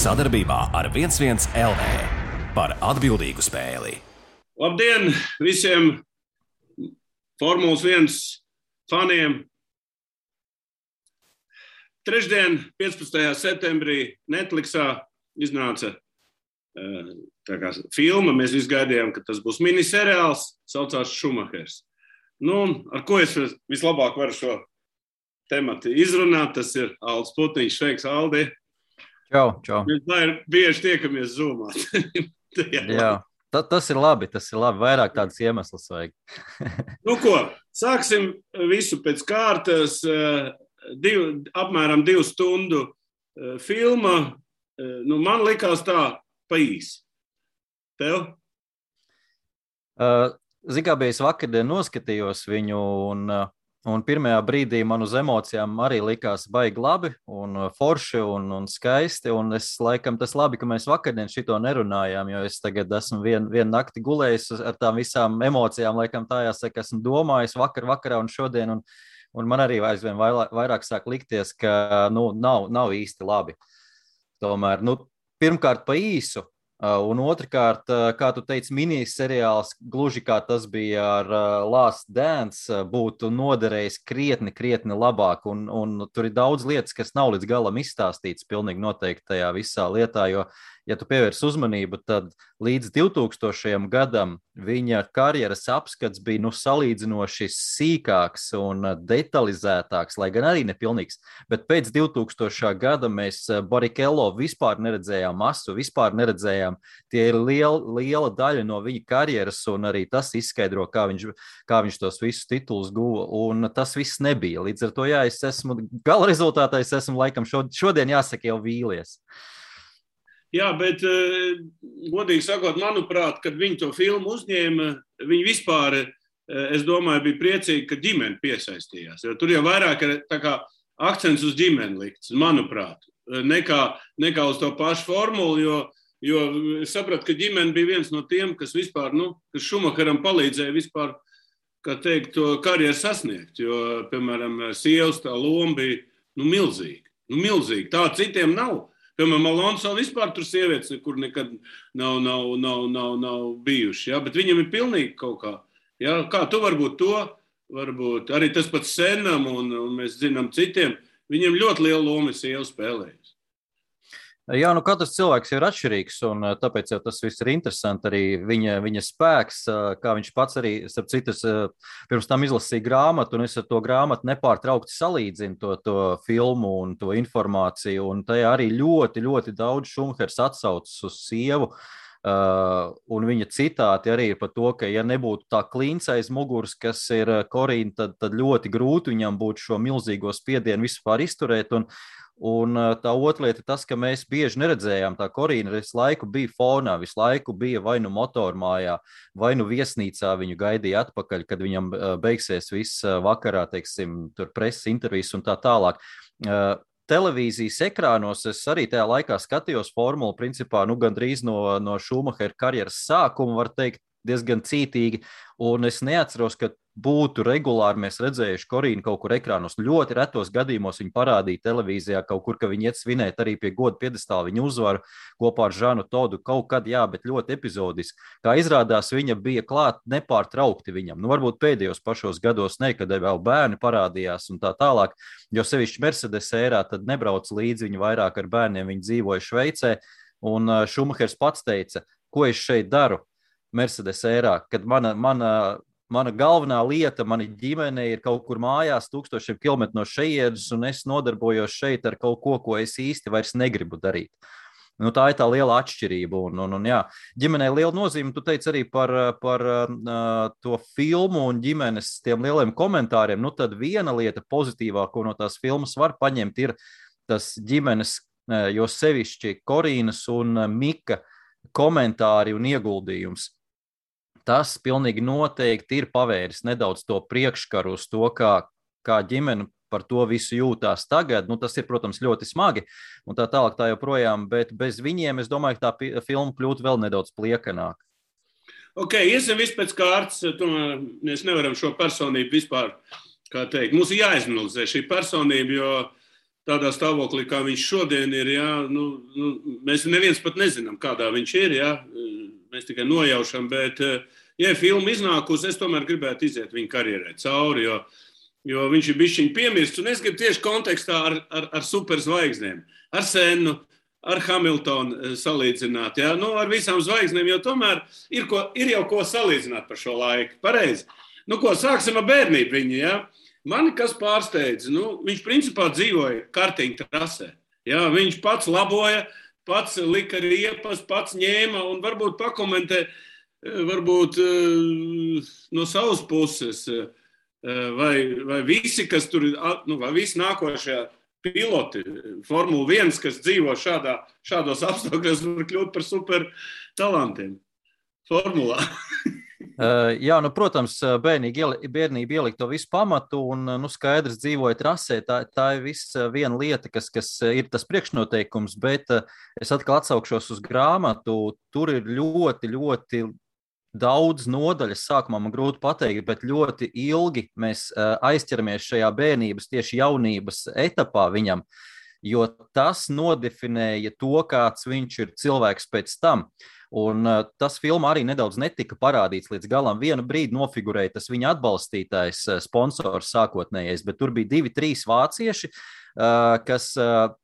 Sadarbībā ar 11 LV par atbildīgu spēli. Labdien visiem Formulas 1 faniem! Trešdien, 15. septembrī, Netflixā iznāca filma. Mēs visi gaidījām, ka tas būs miniseriāls, saucās Šumahers. Ar ko es vislabāk varu šo tematu izrunāt, tas ir Aldis Putniņš. Sveiks, Aldi! Čau. Mēs bieži tiekamies Zoomā. Jā, tas ir labi. Vairāk tādas iemeslas vajag. Sāksim visu pēc kārtas. Apmēram 2 stundu filma. Man likās tā pa īsi. Tev? Zikābijas vakardien noskatījos viņu un pirmajā brīdī man uz emocijām arī likās baigi labi un forši un skaisti. Un tas labi, ka mēs vakardien šito nerunājām, jo es tagad esmu vienu nakti gulējis ar tām visām emocijām, laikam tā jāsaka, esmu domājis vakarā un šodien. Un man arī aizvien vairāk sāk likties, ka nav īsti labi. Tomēr, pirmkārt pa īsu, un otrkārt, kā tu teici, miniseriāls, gluži kā tas bija ar Last Dance, būtu noderējis krietni labāk. Un tur ir daudz lietas, kas nav līdz galam izstāstīts pilnīgi noteikti tajā visā lietā, jo, ja tu pievērs uzmanību, tad līdz 2000. gadam viņa karjeras apskats bija salīdzinoši sīkāks un detalizētāks, lai gan arī nepilnīgs. Bet pēc 2000. gada mēs Barrichello vispār neredzējām masu, vispār neredzējām. Tie ir liela daļa no viņa karjeras, un arī tas izskaidro, kā viņš tos visus titulus guva, un tas viss nebija. Līdz ar to, jā, es esmu gala rezultātā, es esmu laikam šodien jāsaka jau vīlies. Jā, bet, godīgi sakot, manuprāt, kad viņi to filmu uzņēma, viņi vispār, es domāju, bija priecīgi, ka ģimene piesaistījās. Jo tur jau vairāk ir tā kā akcents uz ģimeni likts, manuprāt, nekā uz to pašu formulu, jo es sapratu, ka ģimene bija viens no tiem, kas vispār, kas Šumacheram palīdzēja vispār, kā teikt, to karjeru sasniegt. Jo, piemēram, sievas tā loma bija, milzīga. Milzīga. Tā citiem nav. Piemēram, Alonso vispār tur sievietes nekur nekad nav bijuši, ja? Bet viņam ir pilnīgi kaut kā. Ja? Kā tu varbūt arī tas pats Senam un mēs zinām citiem, viņam ļoti liela loma sieva spēlējas. Jā, katrs cilvēks ir atšķirīgs, un tāpēc jau tas viss ir interesanti. Arī viņa spēks, kā viņš pats arī, starp citas, pirms tam izlasīja grāmatu, un es ar to grāmatu nepārtraukti salīdzinu to filmu un to informāciju, un tajā arī ļoti daudz Šumahers atsaucas uz sievu, un viņa citāti arī par to, ka ja nebūtu tā klints aiz muguras, kas ir Korīna, tad ļoti grūti viņam būtu šo milzīgo spiedienu vispār izturēt, un tā otra lieta ir tas, ka mēs bieži neredzējām, tā Korīna visu laiku bija fonā, visu laiku bija vai motormājā, vai viesnīcā viņu gaidīja atpakaļ, kad viņam beigsies viss vakarā, teiksim, tur preses intervijas un tā tālāk. Televīzijas ekrānos es arī tajā laikā skatījos formulu, principā, gandrīz no Šumahera karjeras sākuma, var teikt, diezgan cītīgi, un es neatceros, ka būtu regulāri mēs redzējuši Korīnu kaut kur ekrānos. Ļoti retos gadījumos viņi parādīja televīzijā kaut kur, ka viņi iet svinēt arī pie goda piedestāla viņu uzvaru kopā ar Žanu Todu kaut kad, jā, bet ļoti epizodiski. Kā izrādās, viņa bija klāt nepārtraukti viņam. Varbūt pēdējos pašos gados ne, kad vēl bērni parādījās un tā tālāk, jo sevišķi Mercedes ērā tad nebrauc līdzi, viņi vairāk ar bērniem, viņi dzīvoja Šveicē, un Šumahers pats teica, ko es šeit daru Mercedes ērā, kad mana galvenā lieta, mana ģimene ir kaut kur mājās 1000 kilometru no šejienes, un es nodarbojos šeit ar kaut ko es īsti vairs negribu darīt. Tā ir tā liela atšķirība, un jā, ģimenei liela nozīme. Tu teici arī par to filmu un ģimenes tiem lieliem komentāriem. Tad viena lieta pozitīvā, ko no tās filmas var paņemt, ir tas ģimenes, jo sevišķi Korīnas un Mika komentāri un ieguldījums. Tas pilnīgi noteikti ir pavēris nedaudz to priekškaru uz to, kā ģimene par to visu jūtās tagad. Tas ir, protams, ļoti smagi un tā tālāk tā joprojām, bet bez viņiem, es domāju, ka tā filma kļūtu vēl nedaudz pliekanāk. Ok, iesim viss pēc kārtas. Mēs nevaram šo personību vispār, kā teikt, mums ir jāizanalizē šī personība, jo tādā stāvoklī, kā viņš šodien ir, jā, mēs neviens pat nezinām, kādā viņš ir, jā, mēs tikai nojaušam, bet, ja filma iznākusi, es tomēr gribētu iziet viņa karjerai cauri, jo viņš ir bišķiņ piemirsts, un es gribu tieši kontekstā ar superzvaigznēm, ar Sennu, ar Hamiltonu salīdzināt, jā, ar visām zvaigznēm, jo tomēr ir jau ko salīdzināt par šo laiku, pareizi. Sāksim ar bērnību viņu, jā. Mani kas pārsteidz, viņš principā dzīvoja kartiņu trasē, jā, viņš pats laboja, pats lika riepas, pats ņēma un varbūt pakomentē, varbūt no savas puses, vai visi, kas tur, vai visi nākošajā piloti, Formula 1, kas dzīvo šādos apstākļos, var kļūt par super talantiem formulā. Jā, protams, bērnība ielika to visu pamatu un, skaidrs dzīvoja trasē. Tā ir viena lieta, kas ir tas priekšnoteikums, bet es atkal atsaukšos uz grāmatu. Tur ir ļoti, ļoti daudz nodaļas, sākumā man grūti pateikt, bet ļoti ilgi mēs aizķeramies šajā bērnības, tieši jaunības etapā viņam, jo tas nodefinēja to, kāds viņš ir cilvēks pēc tam. Un tas filmā arī nedaudz netika parādīts līdz galam. Vienu brīdi nofigurēja tas viņa atbalstītājs, sponsors sākotnējais, bet tur bija 2-3 vācieši, kas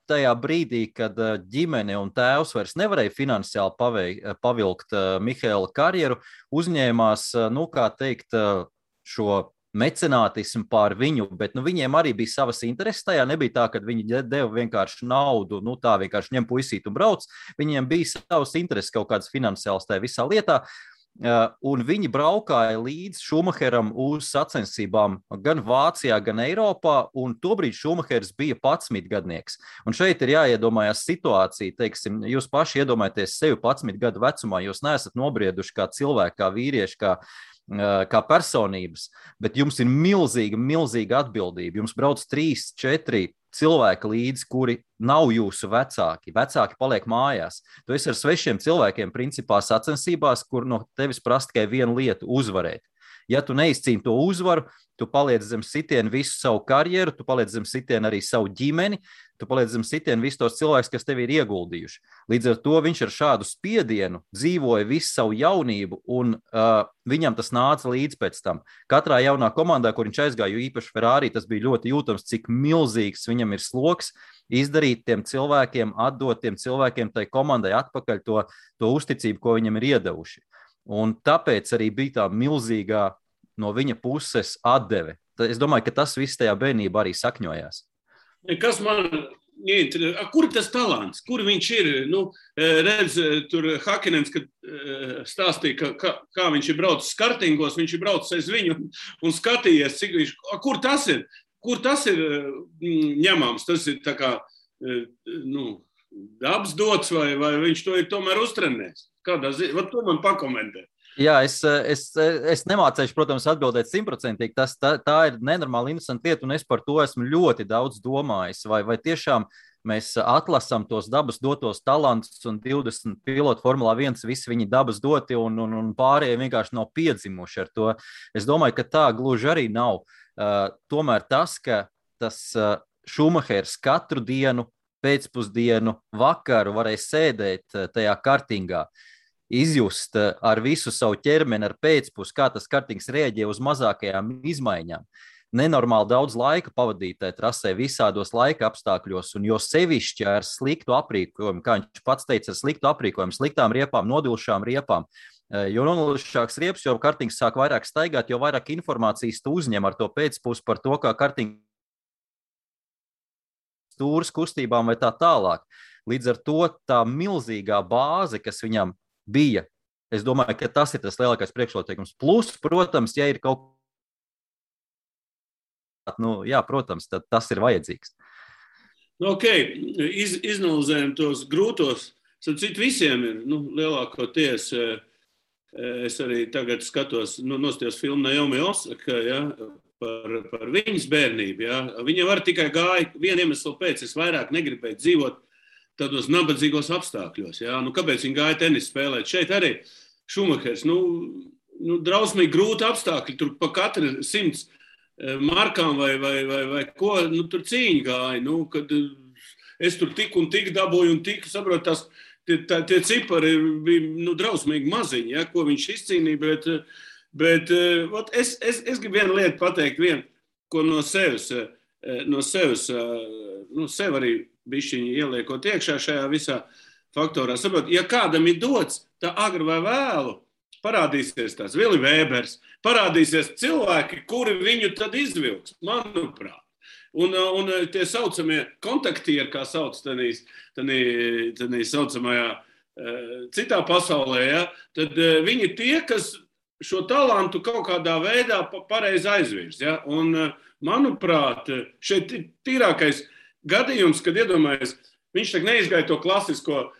tajā brīdī, kad ģimene un tēvs vairs nevarēja finansiāli pavilkt Mihaela karjeru, uzņēmās, šo mecenātismu pār viņu, bet viņiem arī bija savas intereses tajā. Nebija tā, ka viņi deva vienkārši naudu, tā vienkārši ņem puisīt un brauc. Viņiem bija savas intereses kaut kādas finansiālas tajā visā lietā. Un viņi braukāja līdz Šumacheram uz sacensībām gan Vācijā, gan Eiropā, un tobrīd Šumachers bija 11 gadnieks. Un šeit ir jāiedomājās situācija, teiksim, jūs paši iedomājaties sevi 11 gadu vecumā, jūs neesat nobrieduši kā cilvēki, kā vīrieši, kā personības, bet jums ir milzīga atbildība. Jums brauc 3-4 cilvēki līdzi, kuri nav jūsu vecāki. Vecāki paliek mājās. Tu esi ar svešiem cilvēkiem principā sacensībās, kur no tevis prasa tikai vienu lietu - uzvarēt. Ja tu neizcīni to uzvaru, tu paliec zem sitienu visu savu karjeru, tu paliec zem sitienu arī savu ģimeni, tu paliec zem sitienu visus tos cilvēkus, kas tevi ir ieguldījuši. Līdz ar to viņš ar šādu spiedienu dzīvoja visu savu jaunību, un viņam tas nāca līdz pēc tam. Katrā jaunā komandā, kur viņš aizgāja, jo īpaši Ferrari, tas bija ļoti jūtams, cik milzīgs viņam ir sloks izdarīt tiem cilvēkiem, atdot tiem cilvēkiem tai komandai atpakaļ to uzticību, ko viņam ir iedevuši. Un tāpēc arī bija tā milzīgā no viņa puses atdeve. Es domāju, ka tas viss tajā bērnībā arī sakņojās. Kas man interesē? Kur ir tas talants? Kur viņš ir? Redz, tur Hakinens, kad stāstīja, kā viņš ir braucis kartingos, viņš ir braucis aiz viņu un skatījies, cik viņš... Kur tas ir? Kur tas ir ņemams? Tas ir tā kā, dabas dots vai viņš to ir tomēr uztrenējis? To man pakomentē. Jā, es nemācēšu, protams, atbildēt 100%. Tā ir nenormāli interesanta lieta, un es par to esmu ļoti daudz domājis. Vai tiešām mēs atlasām tos dabas dotos talantus, un 20 pilotu Formulā 1 visi viņi dabas doti, un pārējie vienkārši nav piedzimuši ar to. Es domāju, ka tā gluži arī nav. Tomēr tas, ka tas Šumahers katru dienu, pēcpusdienu, vakaru varēja sēdēt tajā kartingā, izjust ar visu savu ķermeni, ar pēcpus, kā tas kartings rēģē uz mazākajām izmaiņām. Nenormāli daudz laika pavadīt trasē visādos laika apstākļos, un jo sevišķi ar sliktu aprīkojumu, kā viņš pats teica, ar sliktu aprīkojumu, sliktām riepām, nodilšām riepām. Jo nodilšāks riepas, jo kartings sāk vairāk staigāt, jo vairāk informācijas tu uzņem ar to pēcpus par to, kā kartings stūras kustībām vai tā tālāk. Līdz ar to tā milzīgā bāze, kas viņam bija, es domāju, ka tas ir tas lielākais priekšnoteikums. Plus, protams, ja ir kaut protams, tad tas ir vajadzīgs. Izanalizējam tos grūtos. Citu visiem ir, lielākoties, es arī tagad skatos, nostājos filmu Naomi Osaka, par viņas bērnību. Ja. Viņa var tikai gāja, vienu iemeslu pēc, es vairāk negribēju dzīvot tādos nabadzīgos apstākļos. Ja. Kāpēc viņa gāja tenis spēlēt? Šeit arī Šumahers, drausmīgi grūti apstākļi, tur pa katru 100 markām vai ko, nu, tur cīņa gāja, nu, kad es tur tik un tik dabūju un tik, saprot, tie cipari bija, nu, drausmīgi maziņi, ja, ko viņš izcīnīja, bet es gribu vienu lietu pateikt, ko no sevis, nu, sev arī bišķiņi ieliekot iekšā šajā visā faktorā. Saprot, ja kādam ir dots, tā agri vai vēlu, parādīsies tās Vili Vēbers, parādīsies cilvēki, kuri viņu tad izvilks, manuprāt. Un tie saucamie kontaktieri, kā sauc tanī saucamajā citā pasaulē, ja, tad viņi tie, kas šo talantu kaut kādā veidā pareizi aizvirs. Ja, un, manuprāt, šeit ir tīrākais gadījums, kad iedomājies, viņš tak neizgāja to klasisko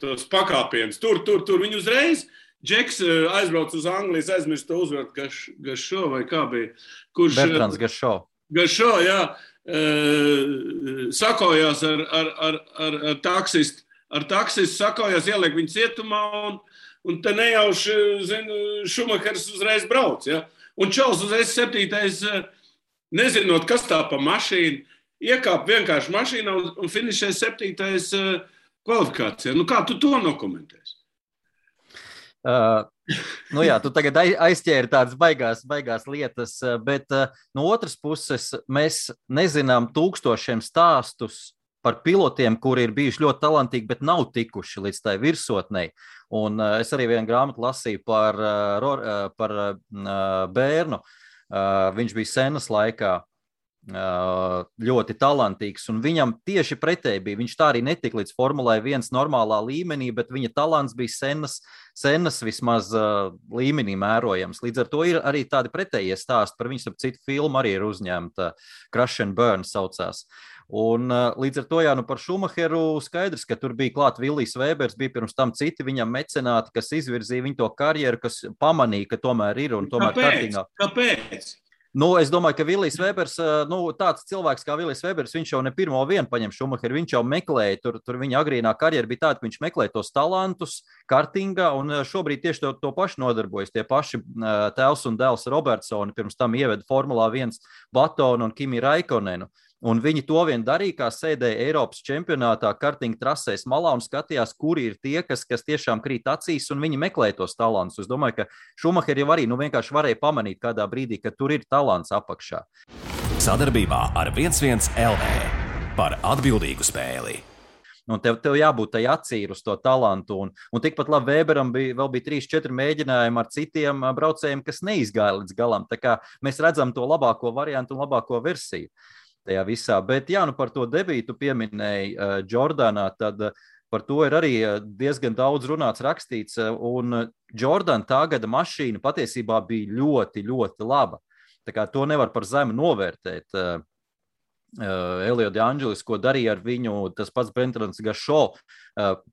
tos pakāpienus. Tur viņi uzreiz, Džeks aizbrauc uz Anglijas, aizmirst to uzvaru Gašo vai kā bija. Bertrands Gašo. Gašo, jā, sakojās ar taksistu. Ar taksistu sakojās, ieliek viņu cietumā un te nejauši, Šumahers uzreiz brauc. Ja? Un Čals uzreiz 7. Nezinot, kas tā pa mašīnu, iekāp vienkārši mašīnā un finišē 7. kvalifikācijā. Nu, kā tu to nokomentēsi? Nu jā, tu tagad aizķēri tādas baigās lietas, bet no otras puses mēs nezinām tūkstošiem stāstus par pilotiem, kuri ir bijuši ļoti talantīgi, bet nav tikuši līdz tai virsotnei. Un es arī vienu grāmatu lasīju par bērnu. Viņš bija Senas laikā ļoti talantīgs, un viņam tieši pretēji bija. Viņš tā arī netika līdz Formulai 1 normālā līmenī, bet viņa talants bija Senas vismaz līmenī mērojams. Līdz ar to ir arī tādi pretējie stāsti par viņu, citu filmu arī ir uzņemta, Crash and Burn saucās. Un līdz ar to, jā, nu par Šumacheru skaidrs, ka tur bija klāt Vilijs Vēbers, bija pirms tam citi viņam mecenāti, kas izvirzīja viņu to karjeru, kas pamanīja, ka tomēr ir un tomēr kārtīgā. Kāpēc? Nu, es domāju, ka Vilijs Vēbers, tāds cilvēks kā Vilijs Vēbers, viņš jau ne pirmo vienu paņem Šumacheru, viņš jau meklēja, tur viņa agrīnā karjera bija tāda, ka viņš meklēja tos talantus kartingā, un šobrīd tieši to paši nodarbojas. Tie paši tēvs un dēls Robertsoni pirms tam ieveda Formulā 1 Batonu un Kimi Raikonenu. Un viņi to vien darīja, kā sēdēja Eiropas čempionātā kartinga trasēs malā un skatījās, kuri ir tie, kas tiešām krīt acīs, un viņi meklēja tos talantus. Es domāju, ka Šumaheri jau arī vienkārši varēja pamanīt kādā brīdī, ka tur ir talants apakšā. Sadarbībā ar 11 LV par atbildīgu spēli. Un tev jābūt tai acīm uz to talantu. Un tikpat labi Vēberam vēl bija 3-4 mēģinājumi ar citiem braucējiem, kas neizgāja līdz galam. Tā kā mēs redzam to labāko variantu un labāko versiju tajā visā. Bet jā, nu par to debītu pieminēji Jordanā, tad par to ir arī diezgan daudz runāts, rakstīts. Un Jordan tā gada mašīna patiesībā bija ļoti, ļoti laba. Tā kā to nevar par zemu novērtēt. Elio De Angelis, ko darīja ar viņu, tas pats Bertrands Gašo,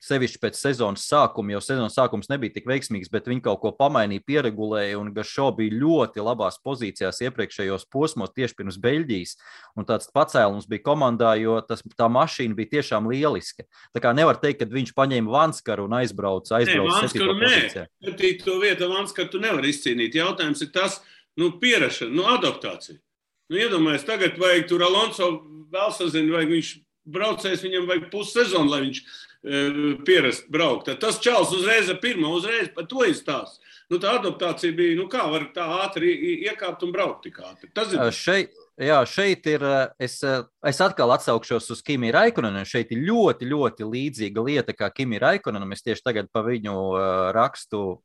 sevišķi pēc sezonas sākuma, jo sezonas sākums nebija tik veiksmīgs, bet viņi kaut ko pamainīja, pieregulēja, un Gašo bija ļoti labās pozīcijās iepriekšējos posmos tieši pirms Beļģijas, un tāds pacēlums bija komandā, jo tā mašīna bija tiešām lieliska. Tā kā nevar teikt, ka viņš paņēma Vanskaru un aizbrauca 7. pozīcijā. To vietu Vanskaru tu nevar izcīnīt. Jautājums ir tas, pierašana, adaptācija. Iedomājies, tagad vajag tur Alonso vēl sazina, vajag viņš braucējs, viņam vajag pussezonu, lai viņš pierast braukt. Tad tas Čals uzreiz par to izstāst. Tā adaptācija bija, kā var tā ātri iekāpt un braukt tik ātri. Tas ir... Šeit ir, es atkal atsaukšos uz Kimi Raikonenu. Šeit ir ļoti, ļoti līdzīga lieta kā Kimi Raikonenam. Es tieši tagad pa viņu rakstu.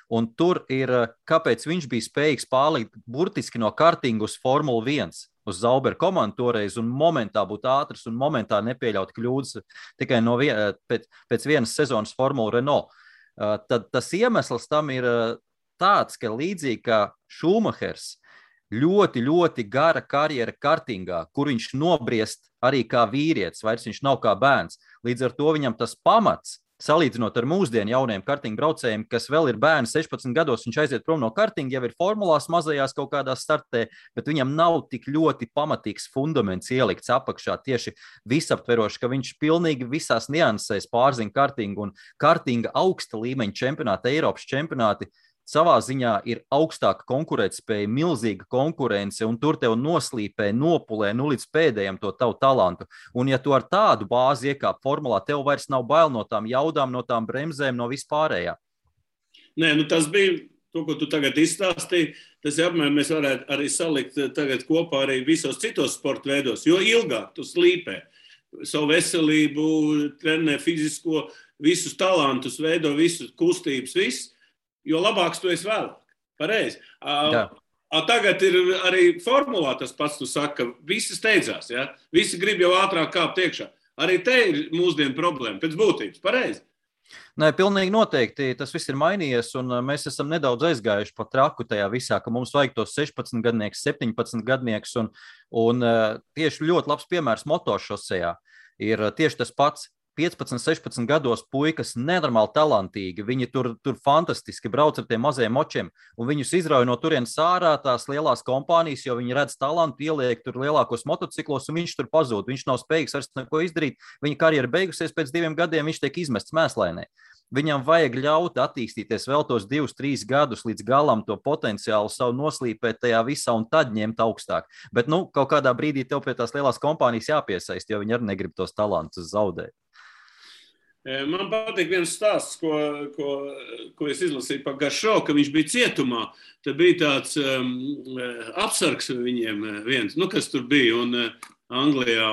Un tur ir, kāpēc viņš bija spējīgs pārlikt burtiski no kartinga uz Formulu 1, uz Zauber komandu toreiz, un momentā būt ātrs un momentā nepieļaut kļūdas tikai pēc vienas sezonas Formula Renault. Tad tas iemesls tam ir tāds, ka līdzīgi kā Šumahers, ļoti, ļoti gara karjera kartingā, kur viņš nobriest arī kā vīrietis, vairs viņš nav kā bērns. Līdz ar to viņam tas pamats, salīdzinot ar mūsdienu jauniem kartinga braucējiem, kas vēl ir bērni 16 gados, viņš aiziet prom no kartinga, jau ir formulās mazajās kaut kādā startē, bet viņam nav tik ļoti pamatīgs fundaments ielikts apakšā, tieši visaptveroši, ka viņš pilnīgi visās niansēs pārzina kartingu, un kartinga augsta līmeņa čempionāti, Eiropas čempionāti, savā ziņā ir augstāka konkurētspēja, milzīga konkurence, un tur tev noslīpē, nopulē līdz pēdējiem to tavu talantu. Un ja tu ar tādu bāzi iekāp formulā, tev vairs nav bail no tām jaudām, no tām bremzēm, no vispārējā. Nē, tas bija to, ko tu tagad izstāstīji. Tas apmēram mēs varētu arī salikt tagad kopā arī visos citos sporta veidos, jo ilgāk tu slīpē savu veselību, trenē fizisko, visus talantus, veido visus kustības, jo labāks tu esi vēlāk. Pareizi. Tagad ir arī formulā tas pats, tu saki, ka visi steidzās, ja? Visi grib jau ātrāk kāpt iekšā. Arī te ir mūsdienu problēma, pēc būtības, pareizi. Nē, pilnīgi noteikti tas viss ir mainījies, un mēs esam nedaudz aizgājuši pa traku tajā visā, ka mums vajag tos 16 gadnieks, 17 gadnieks, un tieši ļoti labs piemērs motošosejā ir tieši tas pats. 15, 16 gados puikas nenormāli talantīgi, viņi tur fantastiski brauc ar tiem mazajiem močiem, un viņus izrauj no turienes ārā tās lielās kompānijas, jo viņi redz talantu, ieliek tur lielākos motociklos, un viņš tur pazūd, viņš nav spējīgs vairs neko izdarīt, viņa karjera beigusies pēc 2 gadiem, viņš tiek izmests mēslainē. Viņam vajag ļaut attīstīties vēl tos 2-3 gadus līdz galam to potenciālu savu noslīpēt tajā visā un tad ņemt augstāk. Bet, kaut kādā brīdī tev pie tās lielās kompānijas jāpiesaist, jo viņi arī negrib tos talantus zaudēt. Man patīk viens stāsts, ko es izlasīju par Garšo, ka viņš bija cietumā. Tad bija tāds apsargs viņiem viens, kas tur bija un Anglijā.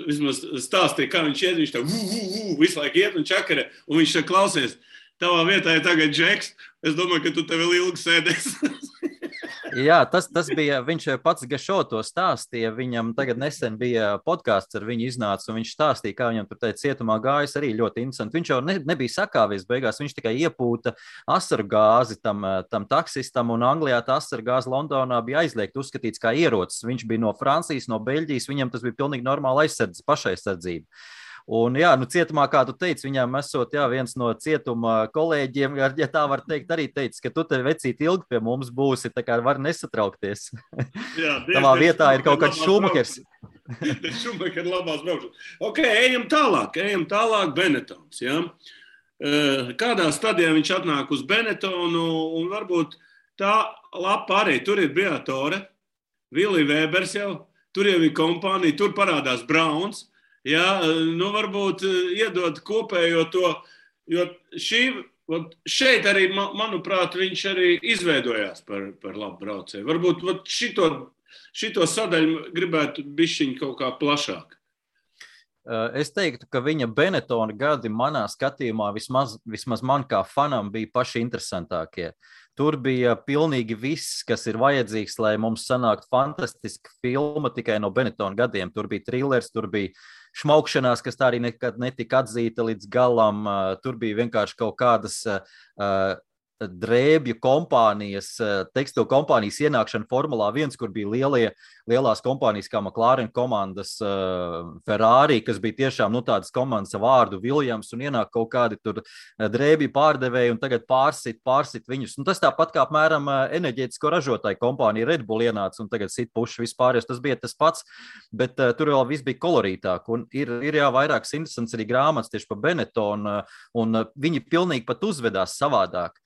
Vismaz stāstīja, kā viņš iet, viņš tā visu laiku iet un čakarē. Un viņš tā klausies, tavā vietā ir tagad Džeks, es domāju, ka tu te vēl ilgi sēdēs. Jā, tas bija, viņš pats Gašo to stāstīja, viņam tagad nesen bija podcasts ar viņu iznāca, un viņš stāstīja, kā viņam tur teica cietumā gājas arī ļoti interesanti. Viņš jau nebija sakāvies beigās, viņš tikai iepūta asaru gāzi tam taksistam, un Anglijā tā asaru gāze Londonā bija aizliegta, uzskatīts kā ierocis. Viņš bija no Francijas, no Beļģijas, viņam tas bija pilnīgi normāla pašaizsardzība. Un, cietumā, kā tu teici, viņam esot viens no cietuma kolēģiem, ja tā var teikt, arī teicis, ka tu te vecīt ilgi pie mums būsi, tā kā var nesatraukties. Jā, tavā vietā ir kaut kāds Šumahers. Šumahers labās braukšanas. Ok, ejam tālāk Benetons. Ja? Kādā stadijā viņš atnāk uz Benetonu, un varbūt tā lapa arī, tur ir Briatore, Vili Vēbers jau, tur jau ir kompānija, tur parādās Brauns. Jā, varbūt iedod kopējo to, jo šeit arī, manuprāt, viņš arī izveidojās par labu braucēju. Varbūt šito sadaļu gribētu bišķiņ kaut kā plašāk. Es teiktu, ka viņa Benetona gadi manā skatījumā vismaz man kā fanam bija paši interesantākie. Tur bija pilnīgi viss, kas ir vajadzīgs, lai mums sanāktu fantastiska filma tikai no Benetona gadiem. Tur bija thrillers, tur bija šmaukšanās, kas tā arī nekad netika atzīta līdz galam. Tur bija vienkārši kaut kādas drēbju kompānijas, tekstilu kompānijas ienākšana Formulā 1, kur bija lielās kompānijas kā McLaren komandas, Ferrari, kas bija tiešām tādas komandas ar vārdu Williams, un ienāk kaut kādi tur drēbju pārdevēji un tagad pārsit viņus. Un tas tāpat kā apmēram enerģētisko ražotāju kompānija Red Bull ienāca un tagad sit puši vispār, tas bija tas pats, bet tur vēl viss bija kolorītāk. Un ir vairākas interesants arī grāmatas tieši par Benetonu, un viņi pilnīgi pat uzvedās savādāk.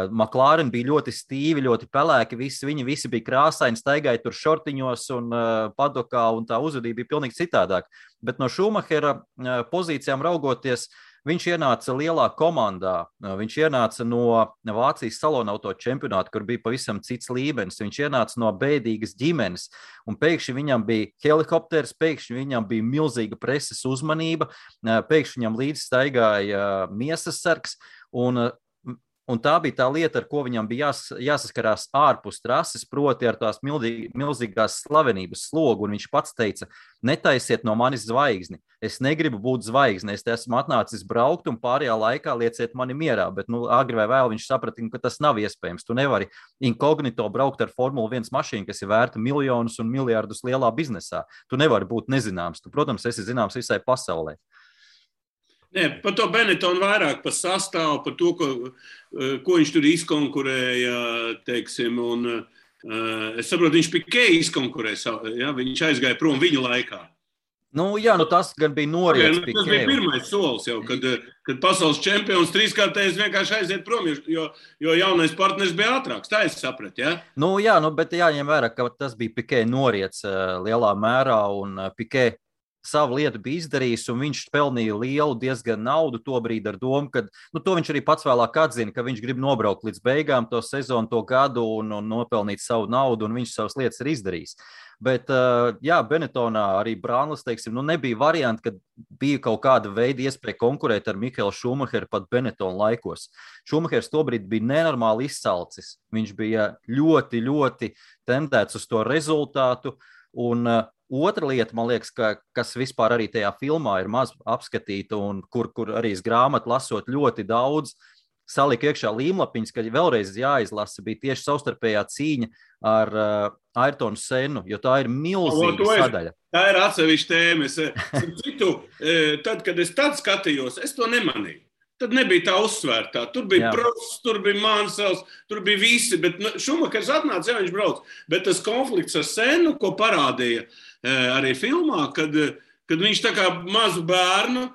McLaren bija ļoti stīvi, ļoti pelēki, viņi visi bija krāsaini, staigāja tur šortiņos un padokā, un tā uzvedība bija pilnīgi citādāk. Bet no Šumahera pozīcijām raugoties, viņš ienāca lielā komandā, viņš ienāca no Vācijas salonauto čempionāta, kur bija pavisam cits līmenis, viņš ienāca no bēdīgas ģimenes, un pēkšņi viņam bija helikopters, pēkšņi viņam bija milzīga preses uzmanība, pēkšņi viņam līdz staigāja miesas sargs, un tā bija tā lieta, ar ko viņam bija jāsaskarās ārpus trases, proti ar tās milzīgās slavenības slogu, un viņš pats teica, netaisiet no manis zvaigzni, es negribu būt zvaigzne, es te esmu atnācis braukt, un pārējā laikā lieciet mani mierā, bet agri vai vēl viņš saprata, ka tas nav iespējams, tu nevari inkognito braukt ar Formula 1 mašīnu, kas ir vērta miljonus un miljardus lielā biznesā, tu nevari būt nezināms, tu, protams, esi zināms visai pasaulē. Nē, par to Benetonu vairāk, par sastāvu, par to, ko viņš tur izkonkurēja, teiksim, un es saprotu, viņš Pikē izkonkurēja, ja, viņš aizgāja prom viņu laikā. Jā, tas gan bija noriets Tas bija pirmais solis jau, kad pasaules čempions trīskārtējs vienkārši aiziet prom, jo jaunais partners bija ātrāks. Tā es sapratu, ja? Bet jāņem vērā, ka tas bija Pikē noriets lielā mērā, un Pikē savu lietu bija izdarījis, un viņš pelnīja lielu diezgan naudu tobrīd ar domu, ka to viņš arī pats vēlāk atzina, ka viņš grib nobraukt līdz beigām to sezonu, to gadu un nopelnīt savu naudu, un viņš savas lietas ir izdarījis. Bet, Benettonā arī Brānlis, teiksim, nebija varianti, kad bija kaut kāda veida iespēja konkurēt ar Mihaelu Šumacheru pat Benettona laikos. Šumachers tobrīd bija nenormāli izsalcis. Viņš bija ļoti, ļoti tendēts uz to rezultātu, un otra lieta, man liekas, kas vispār arī tajā filmā ir maz apskatīta un kur arī es grāmatu lasot ļoti daudz, salika iekšā līmlapiņas, ka vēlreiz jāizlasa, bija tieši savstarpējā cīņa ar Ayrtonu Sennu, jo tā ir milzīga sadaļa. Tā ir atsevišķa tēma. Tad, kad es tad skatījos, es to nemanīju. Tad nebija tā uzsvērtā. Tur bija Prosts, tur bija Mansels, tur bija visi, bet Šumachers atnāca, viņš brauc. Bet tas konflikts ar Sennu, ko parādīja arī filmā, kad viņš tā kā mazu bērnu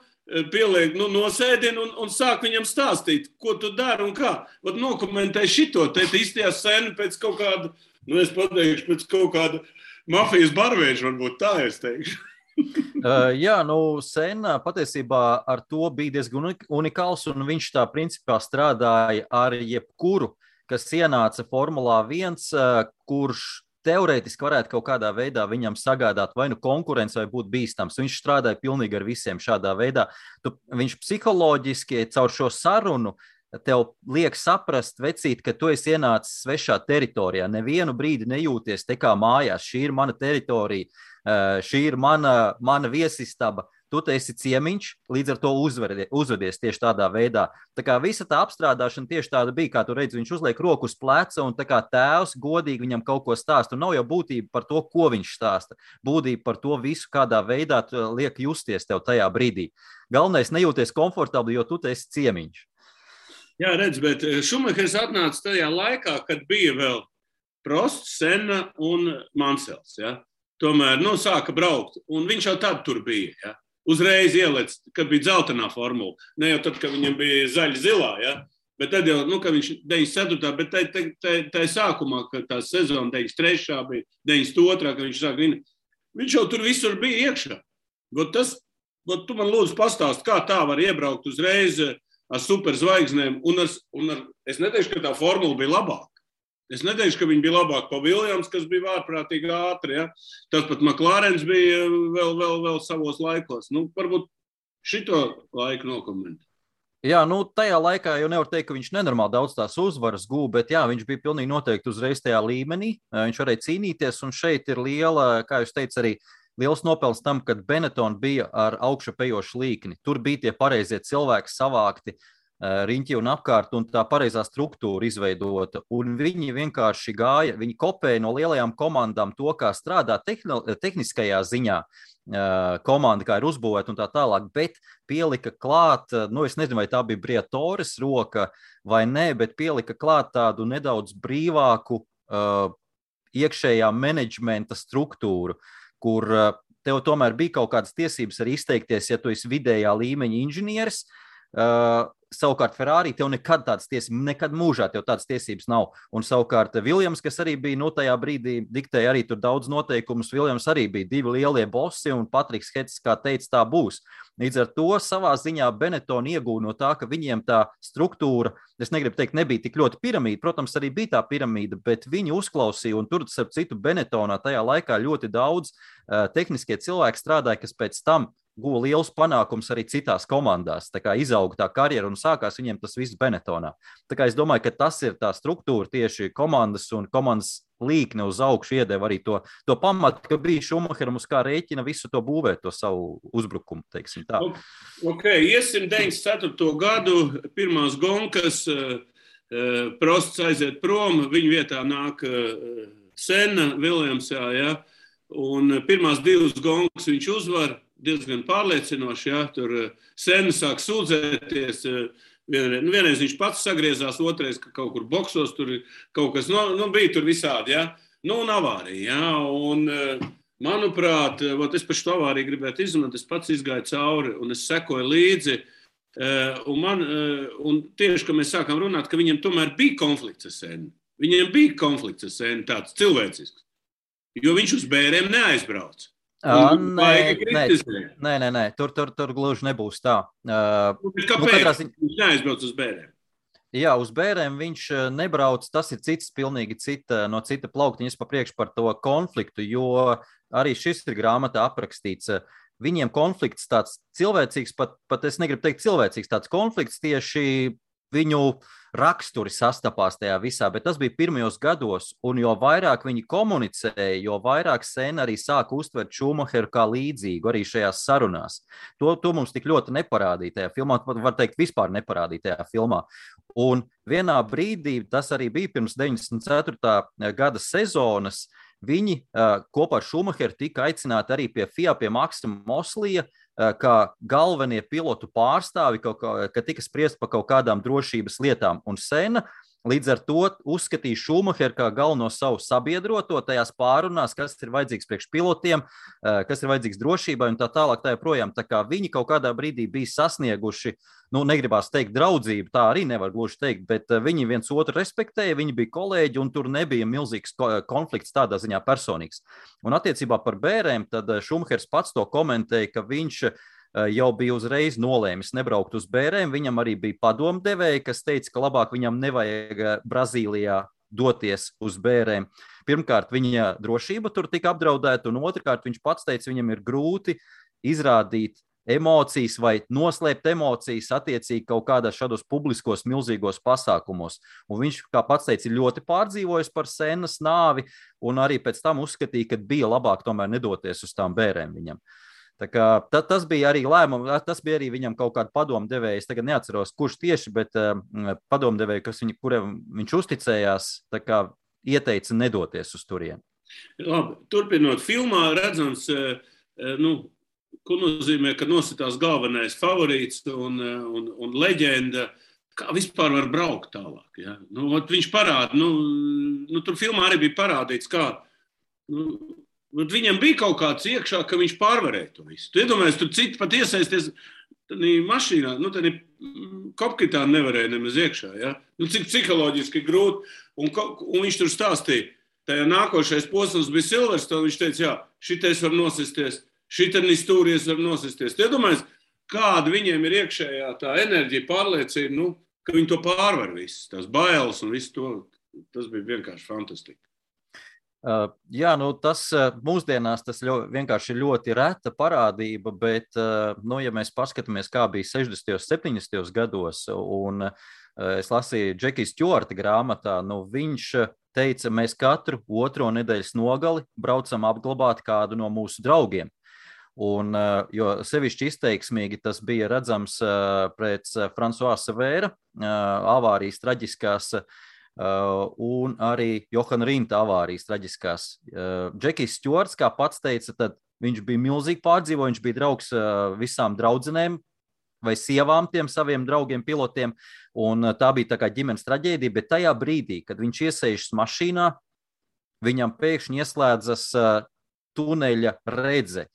pieliek nosēdina un sāk viņam stāstīt, ko tu dari un kā. Nokomentē šito, te izstījās Sennu pēc kaut kāda, es pateikšu, pēc kaut kāda mafijas barvēža, varbūt tā es teikšu. Senna patiesībā ar to bija diezgan unikāls, un viņš tā principā strādāja ar jebkuru, kas ienāca Formulā 1, kurš teorētiski varētu kaut kādā veidā viņam sagādāt vai konkurence vai būt bīstams. Viņš strādāja pilnīgi ar visiem šādā veidā. Viņš psiholoģiski caur šo sarunu tev liek saprast, vecīt, ka tu esi ienācis svešā teritorijā. Nevienu brīdi nejūties te kā mājās. Šī ir mana teritorija, šī ir mana viesistaba. Tu te esi ciemiņš, līdz ar to uzvedies tieši tādā veidā. Tā kā visa tā apstrādāšana tieši tāda bija, kā tu redzi, viņš uzliek roku uz pleca un tā kā tēvs godīgi viņam kaut ko stāsta. Un nav jau būtība par to, ko viņš stāsta. Būtība par to visu, kādā veidā liek justies tev tajā brīdī. Galvenais nejūties komfortabli, jo tu te esi ciemiņš. Jā, redz, bet Šumachers atnāca tajā laikā, kad bija vēl Prosts, Senna un Mansels. Ja? Tomēr, sāka braukt, un viņš jau tad tur bija. Ja? Uzreiz ielec, kad bija dzeltenā formula. Ne jau tad, kad viņam bija zaļa-zilā, ja? Bet tad jau, ka viņš 94. Bet tā sākumā, kad tā sezona 93. bija, 92. kad viņš sāk vinēt, viņš jau tur visur bija iekšā. Tu man lūdzu pastāst, kā tā var iebraukt uzreiz ar superzvaigznēm, es neteikšu, ka tā formula bija labāka. Es neteikšu, ka viņa bija labāka pa Viljams, kas bija ārprātīgi ātri. Ja? Tas pat McLarens bija vēl savos laikos. Varbūt šito laiku nokomentē. Jā, tajā laikā jau nevar teikt, ka viņš nenormāli daudz tās uzvaras gūja, bet jā, viņš bija pilnīgi noteikti uzreiz tajā līmenī. Viņš varēja cīnīties, un šeit ir liela, kā jūs teicat, arī liels nopelns tam, kad Benetton bija ar augšupejošu līkni. Tur bija tie pareizie cilvēki savākti riņķi un apkārt, un tā pareizā struktūra izveidota. Un viņi vienkārši gāja, viņi kopēja no lielajām komandām to, kā strādā tehniskajā ziņā komanda, kā ir uzbūvēta un tā tālāk, bet pielika klāt, es nezinu, vai tā bija Briatoras roka vai nē, bet pielika klāt tādu nedaudz brīvāku iekšējā menedžmenta struktūru, kur tev tomēr bija kaut kādas tiesības arī izteikties, ja tu esi vidējā līmeņa inženieris. Savukārt Ferrari tev nekad tādas tiesības, nekad mūžā tev tādas tiesības nav. Un savukārt Viljams, kas arī bija, tajā brīdī diktēja arī tur daudz noteikumus, Viljams arī bija divi lielie bosi, un Patriks Hets, kā teica, tā būs. Līdz ar to savā ziņā Benetton iegūja no tā, ka viņiem tā struktūra, es negribu teikt, nebija tik ļoti piramīda, protams, arī bija tā piramīda, bet viņi uzklausīja, un tur, starp citu, Benettonā tajā laikā ļoti daudz tehniskie cilvēki strādāja, kas pēc tam guva liels panākums arī citās komandās. Tā kā izauga tā karjera un sākās viņiem tas viss Benettonā. Tā kā es domāju, ka tas ir tā struktūra tieši komandas un komandas līkne uz augšu iedeva arī to pamatu, ka bija Šumacheram uz kā rēķina visu to būvēt, to savu uzbrukumu, teiksim tā. Iesim 94. gadu, pirmās gonkas, Prosts aiziet prom, viņa vietā nāk Senna, Viljamsā, ja? Un pirmās divas gonkas viņš uzvar, diezgan pārliecinoši, ja, tur Senna sāk sūdzēties, vienreiz viņš pats sagriezās, otrais, ka kaut kur boksos, tur kaut kas, bija tur visādi, ja, un avārija, ja, Manuprāt, es par šo avāriju gribētu izmantot, es pats izgāju cauri un es sekoju līdzi. Un tieši, kad mēs sākām runāt, ka viņam tomēr bija konflikts ar Sennu. Viņiem bija konflikts ar Sennu, tāds cilvēcisks. Jo viņš uz bērēm neaizbrauc. Nē, tur gluži nebūs tā. Kāpēc viņš neaizbrauc uz bērēm? Jā, uz bērēm viņš nebrauc, tas ir pilnīgi no cita plauktiņa. Es papriekšu par to konfliktu, jo arī šis ir grāmatā aprakstīts. Viņiem konflikts tāds cilvēcīgs, pat es negribu teikt cilvēcīgs, tāds konflikts tieši viņu raksturi sastapās tajā visā, bet tas bija pirmajos gados, un jo vairāk viņi komunicēja, jo vairāk Senna arī sāka uztvert Schumacheru kā līdzīgu arī šajās sarunās. To mums tik ļoti neparādīja tajā filmā, var teikt, vispār neparādīja tajā filmā. Un vienā brīdī, tas arī bija pirms 94. gada sezonas, viņi kopā ar Schumacheru tika aicināti arī pie FIA, pie Maksa Moslija, kā galvenie pilotu pārstāvi, ka tika spriest par kaut kādām drošības lietām. Un Senna līdz ar to uzskatīja Schumacheru kā galveno savu sabiedroto tajās pārunās, kas ir vajadzīgs priekš pilotiem, kas ir vajadzīgs drošībai un tā tālāk tā joprojām. Tā kā viņi kaut kādā brīdī bija sasnieguši, negribās teikt draudzību, tā arī nevar gluži teikt, bet viņi viens otru respektēja, viņi bija kolēģi un tur nebija milzīgs konflikts tādā ziņā personīgs. Un attiecībā par bērēm, tad Schumachers pats to komentēja, ka viņš jau bija uzreiz nolēmis nebraukt uz bērēm. Viņam arī bija padomdevēji, kas teica, ka labāk viņam nevajag Brazīlijā doties uz bērēm. Pirmkārt, viņa drošība tur tika apdraudēta, un otrkārt, viņš pats teica, viņam ir grūti izrādīt emocijas vai noslēpt emocijas attiecīgi kaut kādā šādos publiskos milzīgos pasākumos. Un viņš, kā pats teica, ir ļoti pārdzīvojis par Sennas nāvi, un arī pēc tam uzskatīja, ka bija labāk tomēr nedoties uz tām bērēm viņam. Tā kā, tas bija arī lēmums, tas bija arī viņam kaut kāda padomdevēja. Es tagad neatceros, kurš tieši, bet padomdevēja, kuriem viņš uzticējās, tā kā ieteica nedoties uz turieni. Labi, turpinot filmā, redzams, ko nozīmē, ka nositās galvenais favorīts un leģenda. Kā vispār var braukt tālāk? Ja? Viņš parāda, tur filmā arī bija parādīts, kā. Viņam bija kaut kāds iekšā, ka viņš pārvarēja to visu. Tu iedomājies, tur citi pat iesaisties mašīnā, tad kopkitā nevarēja nemaz iekšā. Ja? Cik psiholoģiski grūti. Un viņš tur stāstīja, tajā nākošais posms bija Silverstone, viņš teica, jā, šitais var nosisties, šitens stūries var nosisties. Tu iedomājies, kāda viņiem ir iekšējā tā enerģija, pārliecība, ka viņi to pārvar visu, tās bailes un visu to. Tas bija vienkārši fantastiski. Jā, tas mūsdienās tas vienkārši ir ļoti reta parādība, bet, ja mēs paskatāmies, kā bija 60. 70. gados, un es lasīju Džekija Stjuarta grāmatā, viņš teica, mēs katru otro nedēļas nogali braucam apglabāt kādu no mūsu draugiem. Un, jo sevišķi izteiksmīgi tas bija redzams pēc François Savēra avārijas traģiskās, un arī Johana Rinta avārijas traģiskās. Džekijs Stjuarts, kā pats teica, tad viņš bija milzīgi pārdzīvo, viņš bija draugs visām draudzenēm vai sievām tiem saviem draugiem pilotiem, un tā bija tā kā ģimenes traģēdija, bet tajā brīdī, kad viņš iesēžas mašīnā, viņam pēkšņi ieslēdzas tuneļa redze.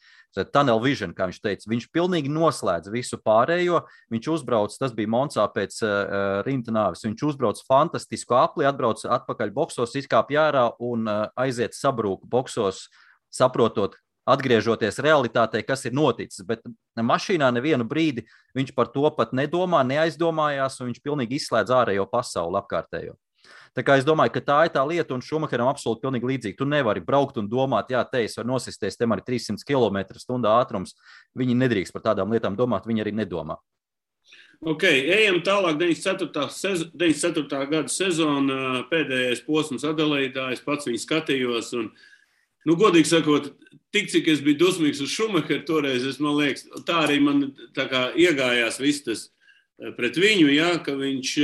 Tunnel vision, kā viņš teica, viņš pilnīgi noslēdz visu pārējo, viņš uzbrauc, tas bija Monsā pēc Rinta nāves, viņš uzbrauc fantastisku apli, atbrauc atpakaļ boksos, izkāp jārā un aiziet sabrūku boksos, saprotot, atgriežoties realitātei, kas ir noticis, bet mašīnā nevienu brīdi viņš par to pat nedomā, neaizdomājās, un viņš pilnīgi izslēdz ārējo pasauli apkārtējo. Tā kā es domāju, ka tā ir tā lieta, un Schumacheram absolūti pilnīgi līdzīgi. Tu nevari braukt un domāt, jā, es varu nosisties, tem arī 300 km/h ātrums. Viņi nedrīkst par tādām lietām domāt, viņi arī nedomā. Ok, ejam tālāk, 94. gada sezona, pēdējais posms Adelaidā, es pats viņu skatījos, un, godīgi sakot, tik cik es biju dusmīgs uz Schumacheru toreiz, man liekas, tā arī man tā kā iegājās viss tas pret viņu, jā, ka viņš,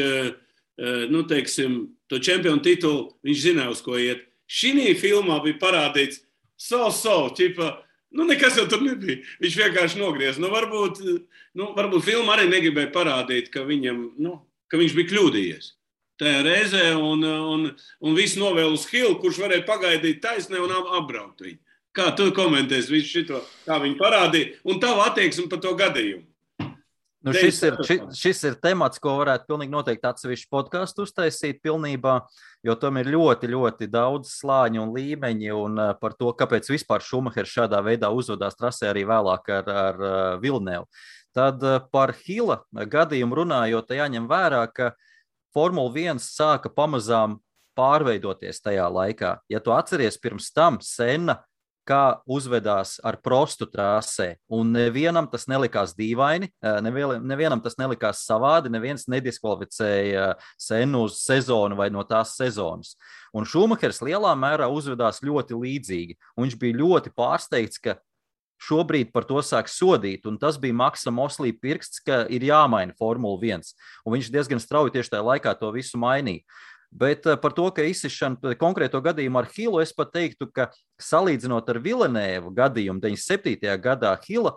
teiksim, to čempionu titulu, viņš zināja, uz ko iet. Šī filmā bija parādīts ķipa, nekas jau tur nebija. Viņš vienkārši nogriez. Varbūt filma arī negribēja parādīt, ka viņam, ka viņš bija kļūdījies tajā reizē un viss novēl uz Hillu, kurš varēja pagaidīt taisnē un apbraukt viņu. Kā tu komentēsi visu šito, kā viņi parādīja, un tavu attieksmi par to gadījumu? Nu, šis ir temats, ko varētu pilnīgi noteikti atsevišķu podcastu uztaisīt pilnībā, jo tam ir ļoti, ļoti daudz slāņu un līmeņi, un par to, kāpēc vispār Šumahers šādā veidā uzvedās trasē arī vēlāk ar Villeneuvu. Tad par Hila gadījumu runājot, jāņem vērā, ka Formula 1 sāka pamazām pārveidoties tajā laikā. Ja tu atceries pirms tam Senna, kā uzvedās ar Prostu trasē, un nevienam tas nelikās dīvaini, nevienam tas nelikās savādi, neviens nediskvalificēja Sennu uz sezonu vai no tās sezonas. Un Šumahers lielā mērā uzvedās ļoti līdzīgi, un viņš bija ļoti pārsteigts, ka šobrīd par to sāk sodīt, un tas bija Maksa Moslī pirksts, ka ir jāmaina Formula 1, un viņš diezgan strauji tieši tajā laikā to visu mainīja. Bet par to, ka izsišana konkrēto gadījumu ar Hilu, es pat teiktu, ka salīdzinot ar Villeneuvu gadījumu 97. gadā, Hila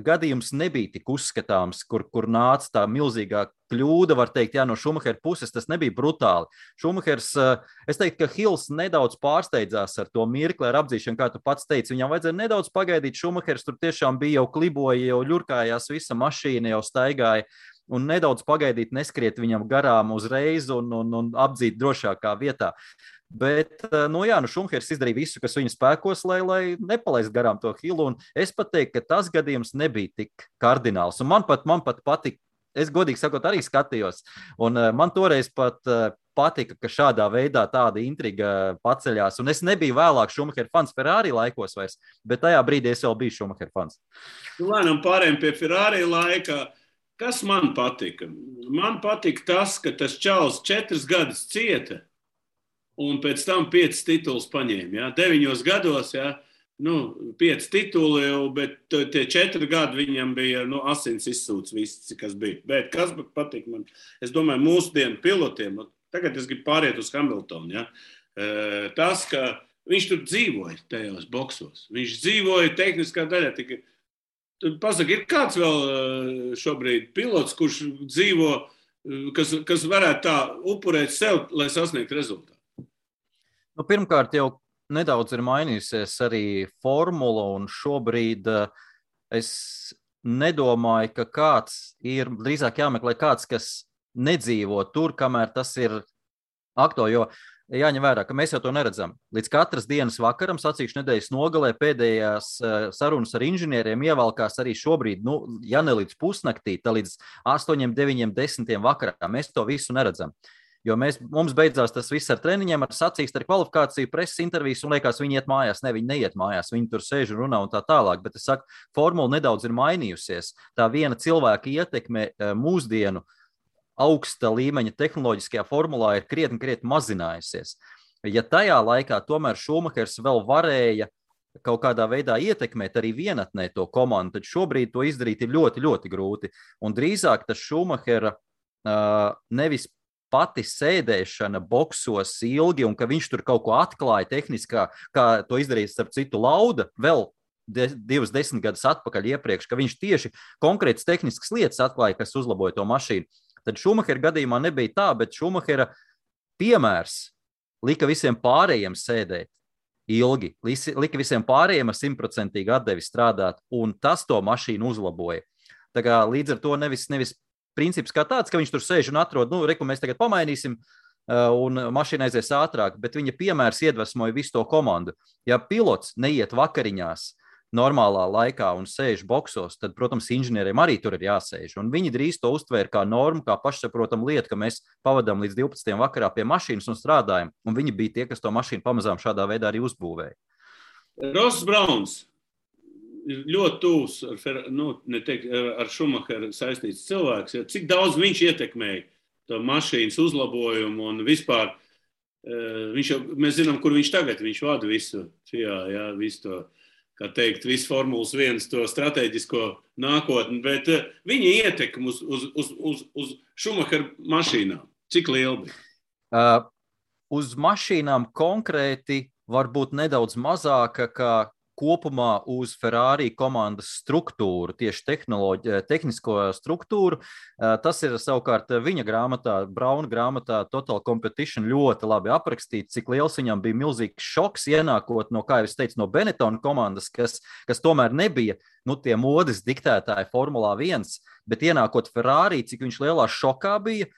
gadījums nebija tik uzskatāms, kur nāca tā milzīgā kļūda, var teikt, no Šumahera puses, tas nebija brutāli. Šumahers, es teiktu, ka Hils nedaudz pārsteidzās ar to mirkli, ar apdzīšanu, kā tu pats teici, viņam vajadzēja nedaudz pagaidīt, Šumahers tur tiešām bija jau kliboja, jau ļurkājās visa mašīna, jau staigāja, un nedaudz pagaidīt, neskriet viņam garām uzreiz un apdzīt drošākā vietā. Bet, Šumahers izdarīja visu, kas viņa spēkos, lai nepalaist garām to Hilu, un es pat teiktu, ka tas gadījums nebija tik kardināls, un man pat patika, es godīgi sakot arī skatījos, un man toreiz pat patika, ka šādā veidā tāda intriga paceļās, un es nebiju vēlāk Šumahera fans Ferrari laikos vairs, bet tajā brīdī es vēl biju Šumahera fans. Lēnām pārējiem pie Ferrari laika. Kas man patika? Man patika tas, ka tas čalis 4 gadus cieta un pēc tam 5 titulus paņēma. Ja? 9 gados, 5 tituli, bet tie 4 gadi viņam bija asins izsūts viss, kas bija. Bet kas patika man? Es domāju, mūsdienu pilotiem, tagad es gribu pāriet uz Hamiltonu. Ja? Tas, ka viņš tur dzīvoja tajos boksos. Viņš dzīvoja tehniskā daļā tikai. Pasaka, ir kāds vēl šobrīd pilots, kurš dzīvo, kas varētu tā upurēt sev, lai sasniegtu rezultātu? Pirmkārt, jau nedaudz ir mainījusies arī formula, un šobrīd es nedomāju, ka kāds ir drīzāk jāmeklē kāds, kas nedzīvo tur, kamēr tas ir aktuāli, jo jāņem vērā, ka mēs jau to neredzam. Līdz katras dienas vakaram, sacīkšu nedēļas nogalē, pēdējās sarunas ar inženieriem ievalkās arī šobrīd, ja ne līdz pusnaktī, tad līdz 8, 9, 10 vakarā. Mēs to visu neredzam. Jo mums beidzās tas viss ar treniņiem, ar sacīkstu, ar kvalifikāciju, preses intervijas, un liekas, viņi iet mājās. Ne, viņi neiet mājās, viņi tur sēž un runā un tā tālāk. Bet es saku, formula nedaudz ir mainījusies. Tā viena cilvēka ietekme mūsdienu augsta līmeņa tehnoloģiskajā formulā ir krietni mazinājusies. Ja tajā laikā tomēr Šumahers vēl varēja kaut kādā veidā ietekmēt arī vienatnē to komandu, tad šobrīd to izdarīt ir ļoti, ļoti grūti. Un drīzāk tas Šumahera nevis pati sēdēšana boksos ilgi un ka viņš tur kaut ko atklāja tehniskā, kā to izdarīja starp citu Lauda vēl 10 gadus atpakaļ iepriekš, ka viņš tieši konkrētas tehniskas lietas atklāja, kas uzlaboja to mašīnu. Tad Šumahera gadījumā nebija tā, bet Šumahera piemērs lika visiem pārējiem sēdēt ilgi, lika visiem pārējiem ar 100% atdevi strādāt, un tas to mašīnu uzlaboja. Tā kā līdz ar to nevis princips kā tāds, ka viņš tur sēž un atrod, mēs tagad pamainīsim, un mašīna aizies ātrāk, bet viņa piemērs iedvesmoja visu to komandu. Ja pilots neiet vakariņās normālā laikā un sēž boksos, tad, protams, inženieriem arī tur ir jāsēž. Un viņi drīz to uztvēra kā normu, kā pašsaprotam lietu, ka mēs pavadām līdz 12. vakarā pie mašīnas un strādājam. Un viņi bija tie, kas to mašīnu pamazām šādā veidā arī uzbūvēja. Ross Brauns ir ļoti tūs ar Šumacheru saistīts cilvēks. Cik daudz viņš ietekmēja to mašīnas uzlabojumu un vispār mēs zinām, kur viņš tagad, viņš vada visu to, kā teikt, visu Formulas 1 to strateģisko nākotni, bet viņa ietekme uz Šumacheru mašīnām, cik liela bija? Uz mašīnām konkrēti varbūt nedaudz mazāka kā kopumā uz Ferrari komandas struktūru, tieši tehnisko struktūru. Tas ir savukārt viņa grāmatā, Brauna grāmatā Total Competition ļoti labi aprakstīts, cik liels viņam bija milzīgs šoks ienākot no, kā jau es teicu, no Benetton komandas, kas tomēr nebija tie modes diktētāji Formulā 1, bet ienākot Ferrari, cik viņš lielā šokā bija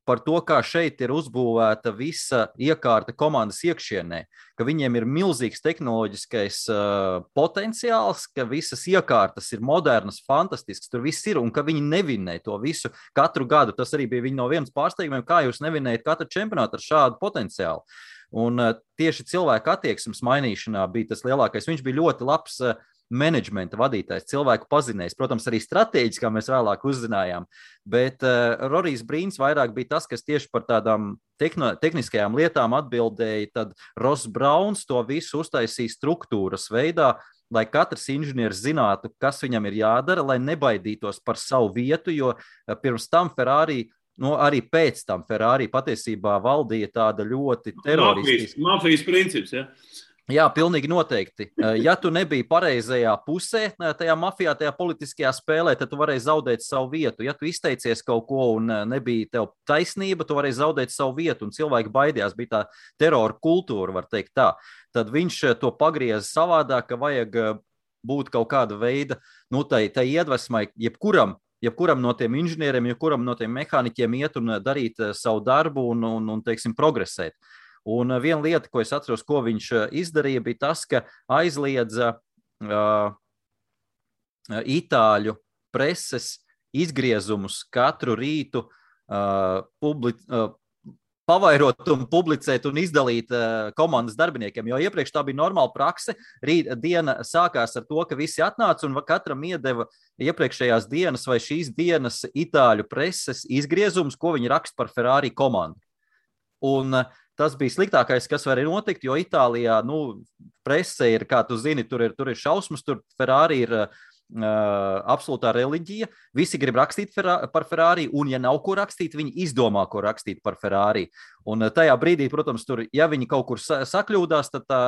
par to, kā šeit ir uzbūvēta visa iekārta komandas iekšienē, ka viņiem ir milzīgs tehnoloģiskais potenciāls, ka visas iekārtas ir modernas, fantastiskas, tur viss ir, un ka viņi nevinē to visu katru gadu. Tas arī bija viņa no vienas pārsteigumiem, kā jūs nevinējat katru čempionātu ar šādu potenciālu. Un tieši cilvēku attieksmes mainīšanā bija tas lielākais. Viņš bija ļoti labs menedžmenta vadītājs, cilvēku pazinējs, protams, arī stratēģis, kā mēs vēlāk uzzinājām, bet Rorijs Brīns vairāk bija tas, kas tieši par tādām tehniskajām lietām atbildēja, tad Ross Brauns to visu uztaisīja struktūras veidā, lai katrs inženieris zinātu, kas viņam ir jādara, lai nebaidītos par savu vietu, jo pirms tam Ferrari, arī pēc tam Ferrari patiesībā valdīja tāda ļoti teroristiska. Mafijas princips, ja? Jā, pilnīgi noteikti. Ja tu nebija pareizajā pusē, tajā mafijā, tajā politiskajā spēlē, tad tu varēji zaudēt savu vietu. Ja tu izteicies kaut ko un nebija tev taisnība, tu varēji zaudēt savu vietu, un cilvēki baidījās, bija tā terora kultūra, var teikt tā. Tad viņš to pagrieza savādāk, ka vajag būt kaut kāda veida, tai iedvesmai, jebkuram no tiem inženieriem, jebkuram no tiem mehāniķiem iet un darīt savu darbu un teiksim, progresēt. Un viena lieta, ko es atceros, ko viņš izdarīja, bija tas, ka aizliedza itāļu preses izgriezumus katru rītu pavairot un publicēt un izdalīt komandas darbiniekiem, jo iepriekš tā bija normāla prakse. Diena sākās ar to, ka visi atnāca un katram iedeva iepriekšējās dienas vai šīs dienas itāļu preses izgriezumus, ko viņi raksta par Ferrari komandu. Un tas bija sliktākais, kas varēja notikt, jo Itālijā, prese ir, kā tu zini, tur ir šausmas, tur Ferrari ir absolūtā reliģija, visi grib rakstīt par Ferrari, un ja nav ko rakstīt, viņi izdomā, ko rakstīt par Ferrari. Un tajā brīdī, protams, tur, ja viņi kaut kur sakļūdās, tad tā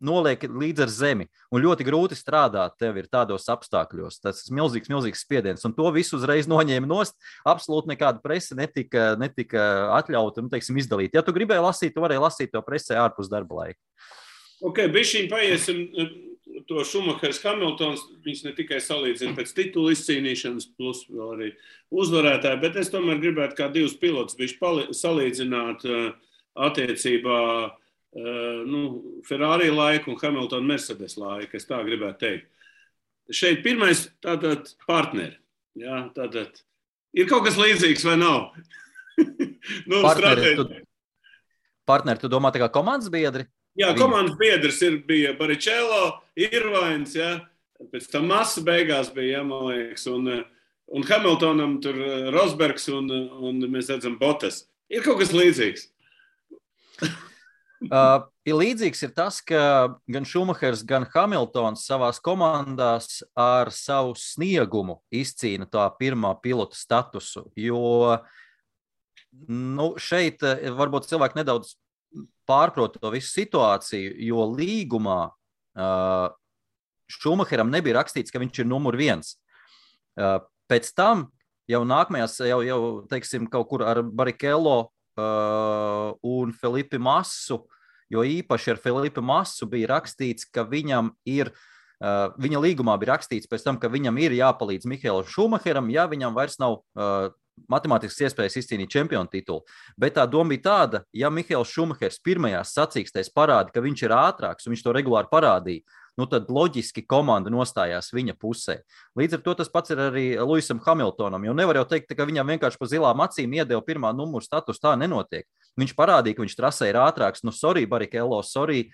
noliek līdz ar zemi, un ļoti grūti strādāt tev ir tādos apstākļos. Tas ir milzīgs spiediens, un to visu uzreiz noņēma nost. Absolūti nekāda prese netika atļauta, teiksim, izdalīt. Ja tu gribēji lasīt, tu varēji lasīt to presē ārpus darba laika. Ok, bišķiņ paiesim to Šumahers Hamiltons, viņš ne tikai salīdzina pēc titulu izcīnīšanas, plus vēl arī uzvarētāji, bet es tomēr gribētu kā divus pilotus bišķi salīdzināt attiecībā Ferrari laiku un Hamilton Mercedes laiku, es tā gribētu teikt. Šeit pirmais tātad partneri. Jā, tātad ir kaut kas līdzīgs vai nav? Partneri, tu domā tā kā komandas biedri? Jā, komandas biedrs bija Barrichello, Irvains, jā, pēc tam Massa beigās bija, jā, man liekas, un Hamiltonam tur Rosbergs un mēs redzam Bottas. Ir kaut kas līdzīgs? Līdzīgs ir tas, ka gan Šumahers, gan Hamiltons savās komandās ar savu sniegumu izcīna tā pirmā pilota statusu, jo šeit varbūt cilvēki nedaudz pārprot to visu situāciju, jo līgumā Šumaheram nebija rakstīts, ka viņš ir numur 1. Pēc tam jau nākamajās, jau teiksim, kaut kur ar Barrichello un Felipe Massu, jo īpaši ar Felipe Massu bija rakstīts, ka viņam ir, viņa līgumā bija rakstīts pēc tam, ka viņam ir jāpalīdz Mihaelam Šumaheram, ja viņam vairs nav matemātiskas iespējas izcīnīt čempionu titulu. Bet tā doma bija tāda, ja Mihaels Šumahers pirmajās sacīkstēs parāda, ka viņš ir ātrāks un viņš to regulāri parādīja, tad loģiski komanda nostājās viņa pusē. Līdz ar to tas pats ir arī Lewisam Hamiltonam, jo nevar jau teikt, ka viņam vienkārši pa zilām acīm iedeva pirmā numuru status, tā nenotiek. Viņš parādīja, ka viņš trasē ir ātrāks, sorry Barrichello, sorry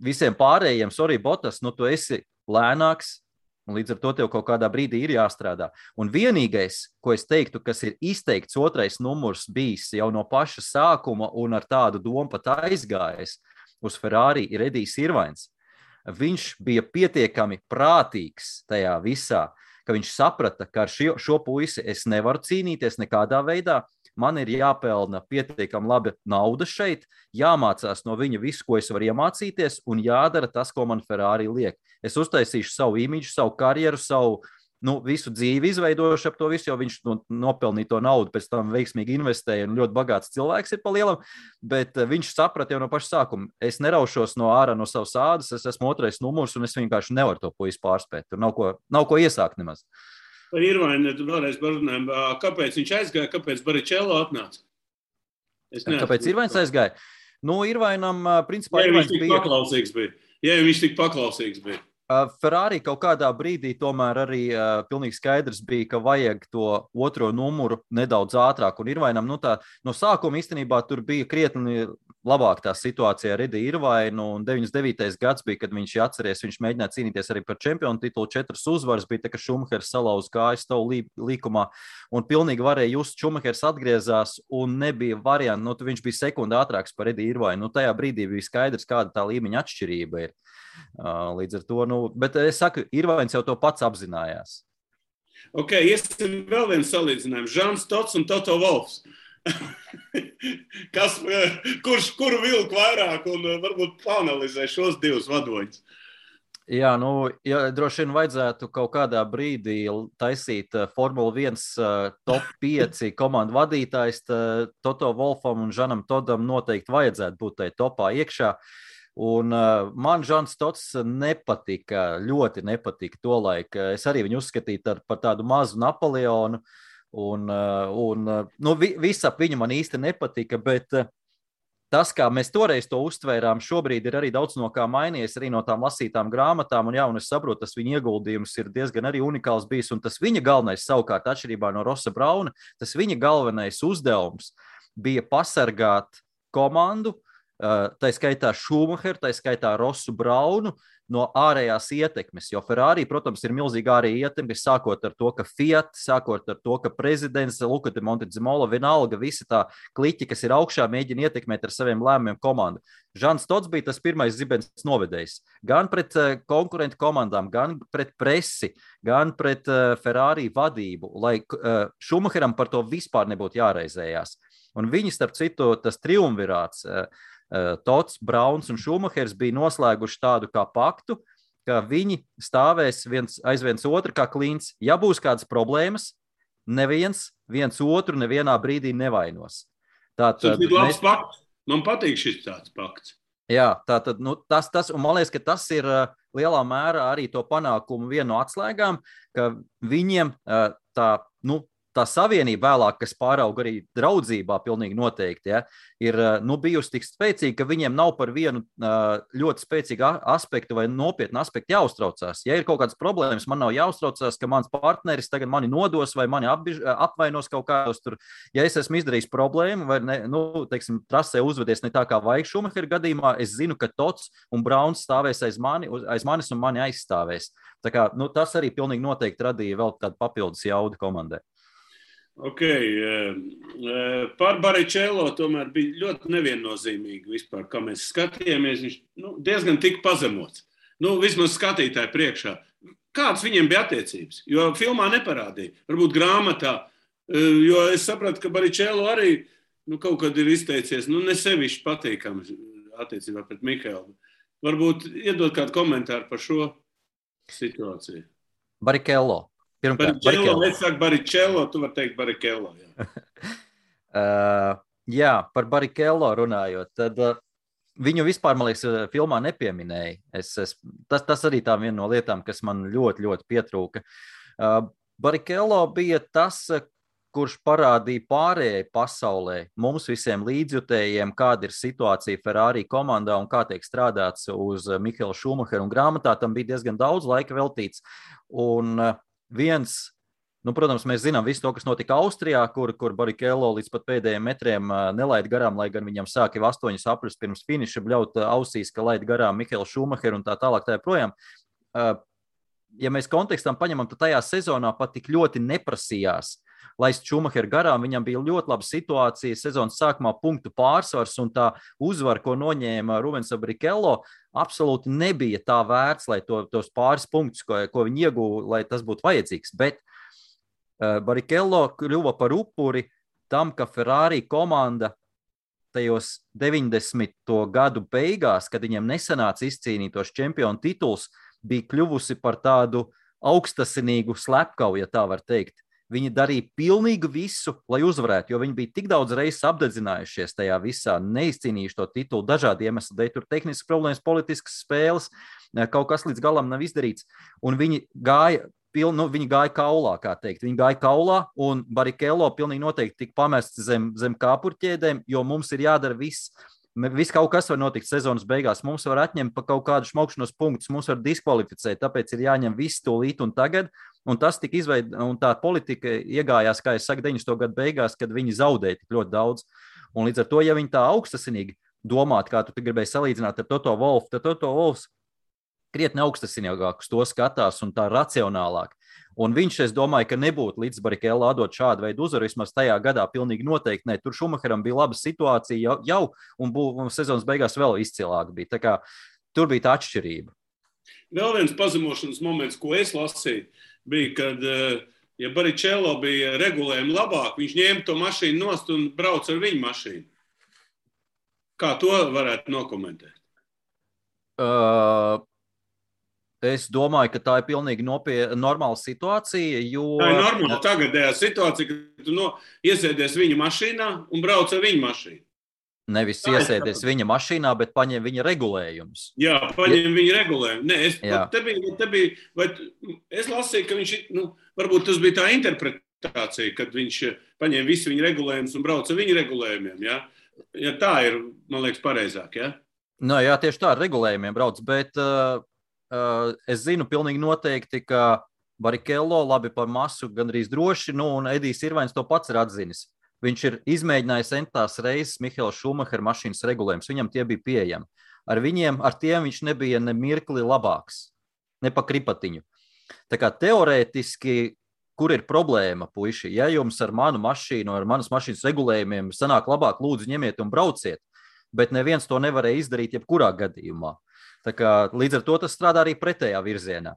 visiem pārējiem, sorry Bottas, tu esi lēnāks, un līdz ar to tev kaut kādā brīdī ir jāstrādā. Un vienīgais, ko es teiktu, kas ir izteikts otrais numurs bijis jau no paša sākuma un ar tādu domu pat aizgājis uz Ferrari, ir Edijs Irvains. Viņš bija pietiekami prātīgs tajā visā, ka viņš saprata, ka ar šo puisi es nevaru cīnīties nekādā veidā. man ir jāpelna pietiekami labi nauda šeit, jāmācās no viņa visu, ko es varu iemācīties, un jādara tas, ko man Ferrari liek. Es uztaisīšu savu imidžu, savu karjeru, savu visu dzīvi izveidojuši ap to visu, jo viņš nopelnīja to naudu, pēc tam veiksmīgi investēja un ļoti bagāts cilvēks ir pa lielam, bet viņš saprata jau no paša sākuma. Es neraušos no ārā no savas ādas, es esmu 2. numurs un es vienkārši nevaru to puisi pārspēt. Tur nav ko iesākt nemaz. Par Irvainu vēlreiz parunājam. Kāpēc viņš aizgāja, kāpēc Baričello atnāca? Kāpēc Irvains aizgāja? Irvainam, principā, ja viņš tik paklausīgs bija. Ja viņš tik paklausīgs bija. Ferrari kaut kādā brīdī tomēr arī pilnīgi skaidrs bija, ka vajag to 2. numuru nedaudz ātrāk. Un Irvainam, no sākuma īstenībā tur bija krietni labāk tā situācija ar Eddie Irvainu. Un 99. gads bija, kad viņš atceries, viņš mēģināja cīnīties arī par čempionu titulu. 4 uzvaras bija, tā ka Šumahers salauz kājas tavu līkumā. Un pilnīgi varēja just, Šumahers atgriezās un nebija variantu. Viņš bija sekundi ātrāks par Eddie Irvainu. Tajā brīdī bija skaidrs, kāda tā līmeņa atšķirība ir. Līdz ar to, bet es saku, Irvains jau to pats apzinājās. Ok, iesim vēl vienu salīdzinājumu. Žans Tots un Toto Wolfs. Kuru vilku vairāk un varbūt panalizē šos 2 vadoņus? Jā, droši vien vajadzētu kaut kādā brīdī taisīt Formula 1 top 5 komandu vadītājs. Toto Wolfam un Žanam Todam noteikti vajadzētu būt tai topā iekšā. Un man Žans Tots nepatika, ļoti nepatika tolaik. Es arī viņu uzskatīju par tādu mazu Napoleonu, un viss ap viņu man īsti nepatika, bet tas, kā mēs toreiz to uztvērām, šobrīd ir arī daudz no kā mainījies, arī no tām lasītām grāmatām, un es saprotu, tas viņa ieguldījums ir diezgan arī unikāls bijis, un tas viņa galvenais savukārt atšķirībā no Rossa Brauna, tas viņa galvenais uzdevums bija pasargāt komandu, tā skaitā Šumacheru, tā skaitā Rossu Braunu no ārējās ietekmes, jo Ferrari, protams, ir milzīgi ārēja ietekme, sākot ar to, ka Fiat, sākot ar to, ka prezidents Luca de Montezemolo, vienalga visi tā kliķi, kas ir augšā, mēģina ietekmēt ar saviem lēmumiem komandu. Žans Tots bija tas pirmais zibens novedējs, gan pret konkurentu komandām, gan pret presi, gan pret Ferrari vadību, lai Šumacheram par to vispār nebūtu jāraizējās. Un viņi, starp citu, tas triumvirāts, Tots, Brauns un Šumahers bija noslēguši tādu kā paktu, ka viņi stāvēs aiz viens otru kā klints. Ja būs kādas problēmas, viens otru nevienā brīdī nevainos. Tas ir labs pakts. Man patīk šis tāds pakts. Jā, tātad, tas, un man liekas, ka tas ir lielā mērā arī to panākumu viena no atslēgām, ka viņiem tā savienība vēlāk, kas pārauga arī draudzībā pilnīgi noteikti, ja, ir bijusi tik spēcīga, ka viņiem nav par vienu ļoti spēcīgu aspektu vai nopietnu aspektu jāuztraucās. Ja ir kaut kādas problēmas, man nav jāuztraucās, ka mans partneris tagad mani nodos vai mani apvainos kaut kādos tur. Ja es esmu izdarījis problēmu vai trasē uzvedies ne tā kā vajag Šumahera gadījumā, es zinu, ka Tots un Brauns stāvēs aiz manis un mani aizstāvēs. Tā kā, tas arī pilnīgi noteikti radīja vēl tādu papildus jaudu komandai. Ok, par Baričello tomēr bija ļoti neviennozīmīgi vispār, kā mēs skatījāmies. Viņš diezgan tika pazemots. Vismaz skatītāji priekšā. Kāds viņiem bija attiecības? Jo filmā neparādīja. Varbūt grāmatā. Jo es sapratu, ka Baričello arī kaut kad ir izteicies, nesevišķi patīkams attiecībā pret Mihēlu. Varbūt iedot kādu komentāru par šo situāciju. Baričello. Es saku Baričello, tu vari teikt Baričello. Jā, par Baričello runājot, tad viņu vispār, man liekas, filmā nepieminēja. Tas arī tā viena no lietām, kas man ļoti, ļoti pietrūka. Baričello bija tas, kurš parādīja pārējai pasaulē, mums visiem līdzjutējiem, kāda ir situācija Ferrari komandā un kā tiek strādāts uz Mihaela Šumacheru. Un grāmatā tam bija diezgan daudz laika veltīts. Un protams, mēs zinām visu to, kas notika Austrijā, kur Baričello līdz pat pēdējiem metriem nelaid garām, lai gan viņam sāka jau 8 apļus pirms finiša bļaut ausīs, ka laid garām Mihaelu Šumacheru un tā tālāk tā projām. Ja mēs kontekstam paņemam, tad tajā sezonā pat tik ļoti neprasījās laist Šumacheru garām, viņam bija ļoti laba situācija, sezonas sākumā punktu pārsvars un tā uzvara, ko noņēma Rubens Baričello, absolūti nebija tā vērts, lai tos pāris punktus, ko viņi ieguva, lai tas būtu vajadzīgs. Bet Baričello kļuva par upuri tam, ka Ferrari komanda tajos 90. gadu beigās, kad viņiem nesanāca izcīnīt tos čempionu tituls, bija kļuvusi par tādu augstasinīgu slepkavu, ja tā var teikt. Viņi darīja pilnīgi visu, lai uzvarētu, jo viņi bija tik daudz reizes apdedzinājušies tajā visā, neizcīnījuši to titulu dažādi iemesli dēļ, tur tehniskas problēmas, politiskas spēles, kaut kas līdz galam nav izdarīts, un viņi gāja kaulā, kā teikt. Viņi gāja kaulā, un Barrichello pilnīgi noteikti tika pamests zem kāpurķēdēm, jo mums ir jādara viss. Viss kaut kas var notikt sezonas beigās. Mums var atņemt pa kaut kādu šmaukšanos punktus, mums var diskvalificēt, tāpēc ir jāņem viss tūlīt un tagad. Un tas tika un tā politika iegājās, kā es saku, 90. gadu beigās, kad viņi zaudēja tik ļoti daudz. Un līdz ar to, ja viņi tā augstasinīgi domātu, kā tu gribēji salīdzināt ar Toto Wolfu, tad Toto Wolfs krietni augstasinīgāk uz to skatās un tā racionālāk. Un viņš, es domāju, ka nebūtu līdz Barrichello atdot šādu veidu uzvaru, vismaz tajā gadā pilnīgi noteikti ne. Tur Schumacheram bija laba situācija jau un sezonas beigās vēl izcilāk bija. Tā kā tur bija tā atšķirība. Vēl viens pazemošanas moments, ko es lasīju, bija, kad, ja Barrichello bija regulējumi labāk, viņš ņēma to mašīnu nost un brauc ar viņu mašīnu. Kā to varētu nokomentēt? Es domāju, ka tā ir pilnīgi normāla situācija, jo... Tā ir normāla tagadējā situācija, ka tu iesēdies viņa mašīnā un brauc ar viņa mašīnu. Nevis iesēdies viņa mašīnā, bet paņem viņa regulējumus. Jā, paņem viņa regulējumus. Nē, es lasīju, ka viņš, varbūt tas bija tā interpretācija, kad viņš paņem visu viņa regulējumus un brauc ar viņa regulējumiem, jā? Ja tā ir, man liekas, pareizāk, jā? Jā, tieši tā ar regulējumiem brauc, bet... Es zinu pilnīgi noteikti, ka Barrichello labi par masu gandrīz droši, un Edijs Irvains to pats ir atzinis. Viņš ir izmēģinājis entās reizes Mihaela Schumachera mašīnas regulējumus, viņam tie bija pieejami. Ar tiem viņš nebija ne mirkli labāks, ne pa kripatiņu. Tā kā teorētiski, kur ir problēma, puiši, ja jums ar manu mašīnu, ar manas mašīnas regulējumiem sanāk labāk, lūdzu ņemiet un brauciet, bet neviens to nevarēja izdarīt jebkurā gadījumā. Tā kā, līdz ar to tas strādā arī pretējā virzienā.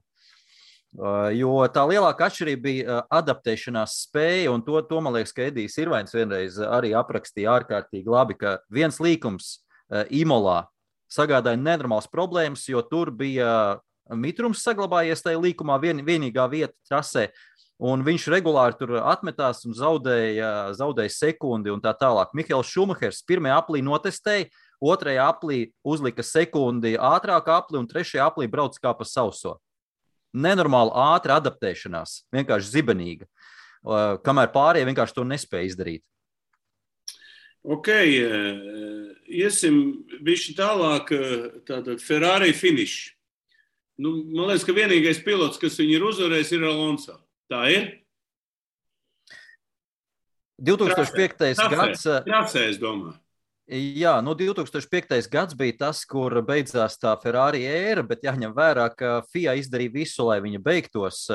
Jo tā lielākā atšķirība bija adaptēšanās spēja, un to man liekas, ka Edijs Irvains vienreiz arī aprakstīja ārkārtīgi labi, ka viens līkums Imolā sagādāja nenormāls problēmas, jo tur bija mitrums saglabājies tajā līkumā vienīgā vieta trasē, un viņš regulāri tur atmetās un zaudēja sekundi un tā tālāk. Mihaels Schumachers pirmajā aplī notestēja, otrajā aplī uzlika sekundi ātrāk apli un trešajā aplī brauc kā pa sauso. Nenormāli ātra adaptēšanās, vienkārši zibenīga, kamēr pārējie vienkārši to nespēja izdarīt. Ok, iesim bišķi tālāk, tātad Ferrari finish. Man liekas, ka vienīgais pilots, kas viņu ir uzvarējis, ir Alonso. Tā ir? 2005. gads... Trasē, es domāju. Jā, 2005. gads bija tas, kur beidzās tā Ferrari ēra, bet jāņem vērā, ka FIA izdarīja visu, lai viņa beigtos,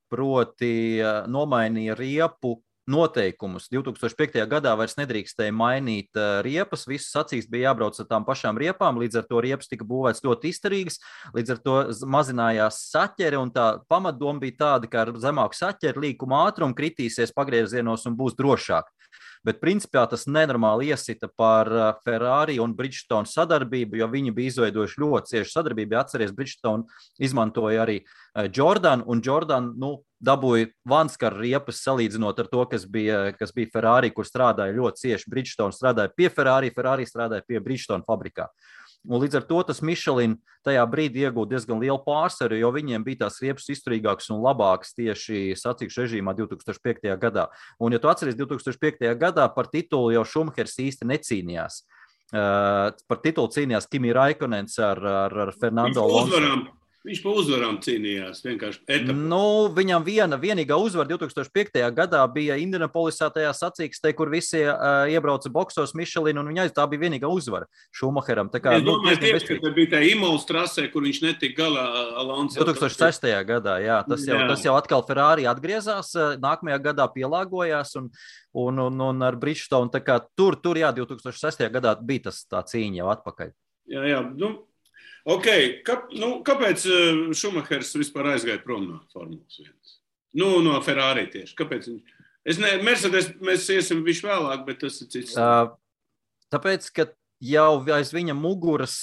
proti nomainīja riepu noteikumus. 2005. gadā vairs nedrīkstēja mainīt riepas, visas acīs bija jābrauc ar tām pašām riepām, līdz ar to riepas tika būvēts ļoti izturīgas, līdz ar to mazinājās saķere, un tā pamatdoma bija tāda, ka ar zemāku saķeri līkuma ātrumu kritīsies pagriezienos un būs drošāk. Bet principā tas nenormāli iesita par Ferrari un Bridgestone sadarbību, jo viņi bija izveidojuši ļoti ciešu sadarbību. Atceries, Bridgestone izmantoja arī Jordan, un Jordan dabūja vanskaru riepas salīdzinot ar to, kas bija Ferrari, kur strādāja ļoti cieši. Bridgestone strādāja pie Ferrari, Ferrari strādāja pie Bridgestone fabrikā. Un līdz ar to tas Michelin tajā brīdī iegūta diezgan lielu pārsvaru, jo viņiem bija tās riepas izturīgākas un labākas tieši sacīkšu režīmā 2005. gadā. Un, ja tu atceries, 2005. gadā par titulu jau Schumachers īsti necīnījās. Par titulu cīnījās Kimi Raikkonens ar Fernando Alonso. Viņš pa uzvarām cīnījās vienkārši etapā. Viņam vienīgā uzvara 2005. gadā bija Indianapolisā tajā sacīkstē, kur visi iebrauca boksos Michelin, un tā bija vienīgā uzvara Schumacheram. Es domāju tieši, ka bija tā Imolas trasē, kur viņš netika galā Alonso. 2006. gadā, jā. Tas jau atkal Ferrari atgriezās, nākamajā gadā pielāgojās, un ar Bridgestone, tā kā tur, jā, 2006. gadā bija tā cīņa jau atpakaļ. Jā, Ok, kāpēc Schumachers vispār aizgāja prom no Formulas 1? No Ferrari tieši. Kāpēc viņš Mercedes mēs iesim višu vēlāk, bet tas ir cits. Tāpēc, ka jau aiz viņa muguras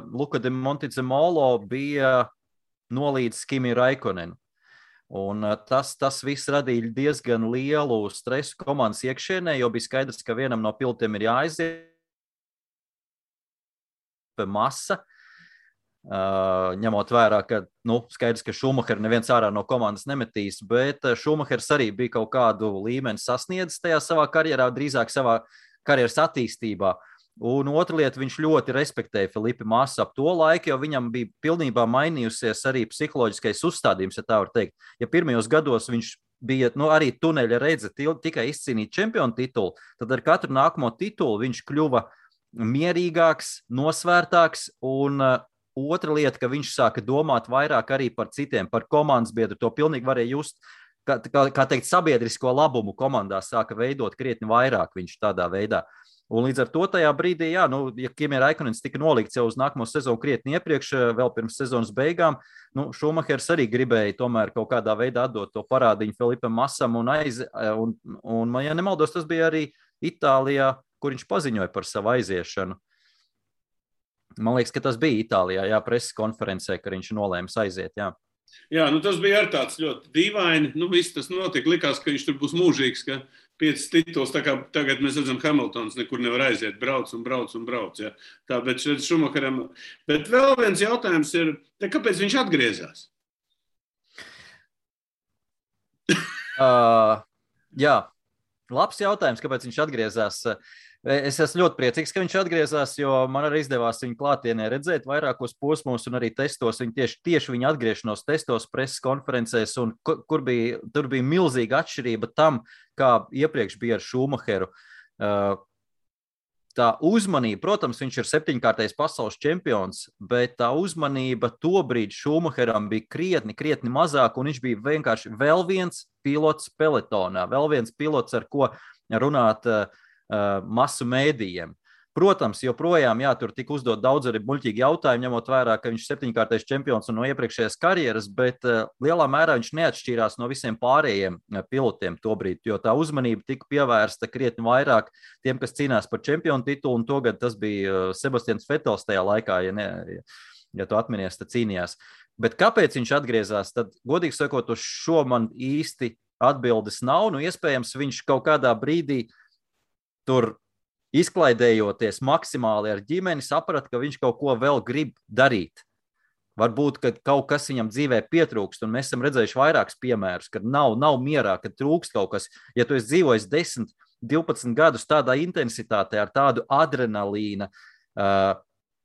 Luka de Montezemolo bija nolīdz Kimi Raikkonenu. Un tas viss radīja diezgan lielu stresu komandas iekšienē, jo bija skaidrs, ka vienam no pilotiem ir jāaiziet masa, ņemot vērā, ka skaidrs, ka Šumahers neviens ārā no komandas nemetīs, bet Šumahers arī bija kaut kādu līmeni sasniedzis tajā savā karjerā, drīzāk savā karjeras attīstībā. Un otra lieta, viņš ļoti respektēja Felipe Masu ap to laiku, jo viņam bija pilnībā mainījusies arī psiholoģiskais uzstādījums, ja tā var teikt. Ja pirmajos gados viņš bija arī tuneļa redze tikai izcīnīt čempionu titulu, tad ar katru nākamo titulu viņš kļuva mierīgāks, nosvērtāks, un otra lieta, ka viņš sāka domāt vairāk arī par citiem, par komandas biedru, to pilnīgi varēja just, kā teikt, sabiedrisko labumu komandā sāka veidot krietni vairāk viņš tādā veidā. Un līdz ar to tajā brīdī, ja Kimi Raikkonens tika nolikts jau uz nākamo sezonu krietni iepriekš, vēl pirms sezonas beigām, Šumahers arī gribēja tomēr kaut kādā veidā atdot to parādiņu Felipam Masam un, ja nemaldos, tas bija arī Itālijā, kur viņš paziņoja par savu aiziešanu. Man liekas, ka tas bija Itālijā, preses konferencē, ka viņš nolēma aiziet, Jā, tas bija arī tāds ļoti dīvaini. Viss tas notika. Likās, ka viņš tur būs mūžīgs, ka 5 tituls, tā kā tagad mēs redzam, Hamiltons nekur nevar aiziet, brauc. Ja. Tā, bet šeit Šumacheram. Bet vēl viens jautājums ir, kāpēc viņš atgriezās? Jā, labs jautājums, kāpēc viņš atgriezās. Es esmu ļoti priecīgs, ka viņš atgriezās, jo man arī izdevās viņu klātienē redzēt vairākos posmos un arī testos. Tieši viņa atgriešanos testos, preses konferencēs, un tur bija milzīga atšķirība tam, kā iepriekš bija ar Šumacheru. Tā uzmanība, protams, viņš ir 7-kārtais pasaules čempions, bet tā uzmanība tobrīd Šumacheram bija krietni mazāk, un viņš bija vienkārši vēl viens pilots peletonā, vēl viens pilots, ar ko runāt masu mēdījiem. Protams, joprojām, tur tika uzdot daudz arī muļķīgi jautājumi, ņemot vērā, ka viņš 7-kārtais čempions un no iepriekšējās karjeras, bet lielā mērā viņš neatšķīrās no visiem pārējiem pilotiem tobrīd, jo tā uzmanība tika pievērsta krietni vairāk tiem, kas cīnās par čempionu titulu, un togad tas bija Sebastians Vettels tajā laikā, ja tu atminies, tad cīnījās. Bet kāpēc viņš atgriezās, tad, godīgi sakot, uz šo man īsti atbildes nav, iespējams, viņš kaut kādā brīdī tur izklaidējoties maksimāli ar ģimeni, saprata, ka viņš kaut ko vēl grib darīt. Varbūt, ka kaut kas viņam dzīvē pietrūkst, un mēs esam redzējuši vairākus piemērus, kad nav mierā, kad trūkst kaut kas. Ja tu esi dzīvojis 10, 12 gadus tādā intensitātē, ar tādu adrenalīna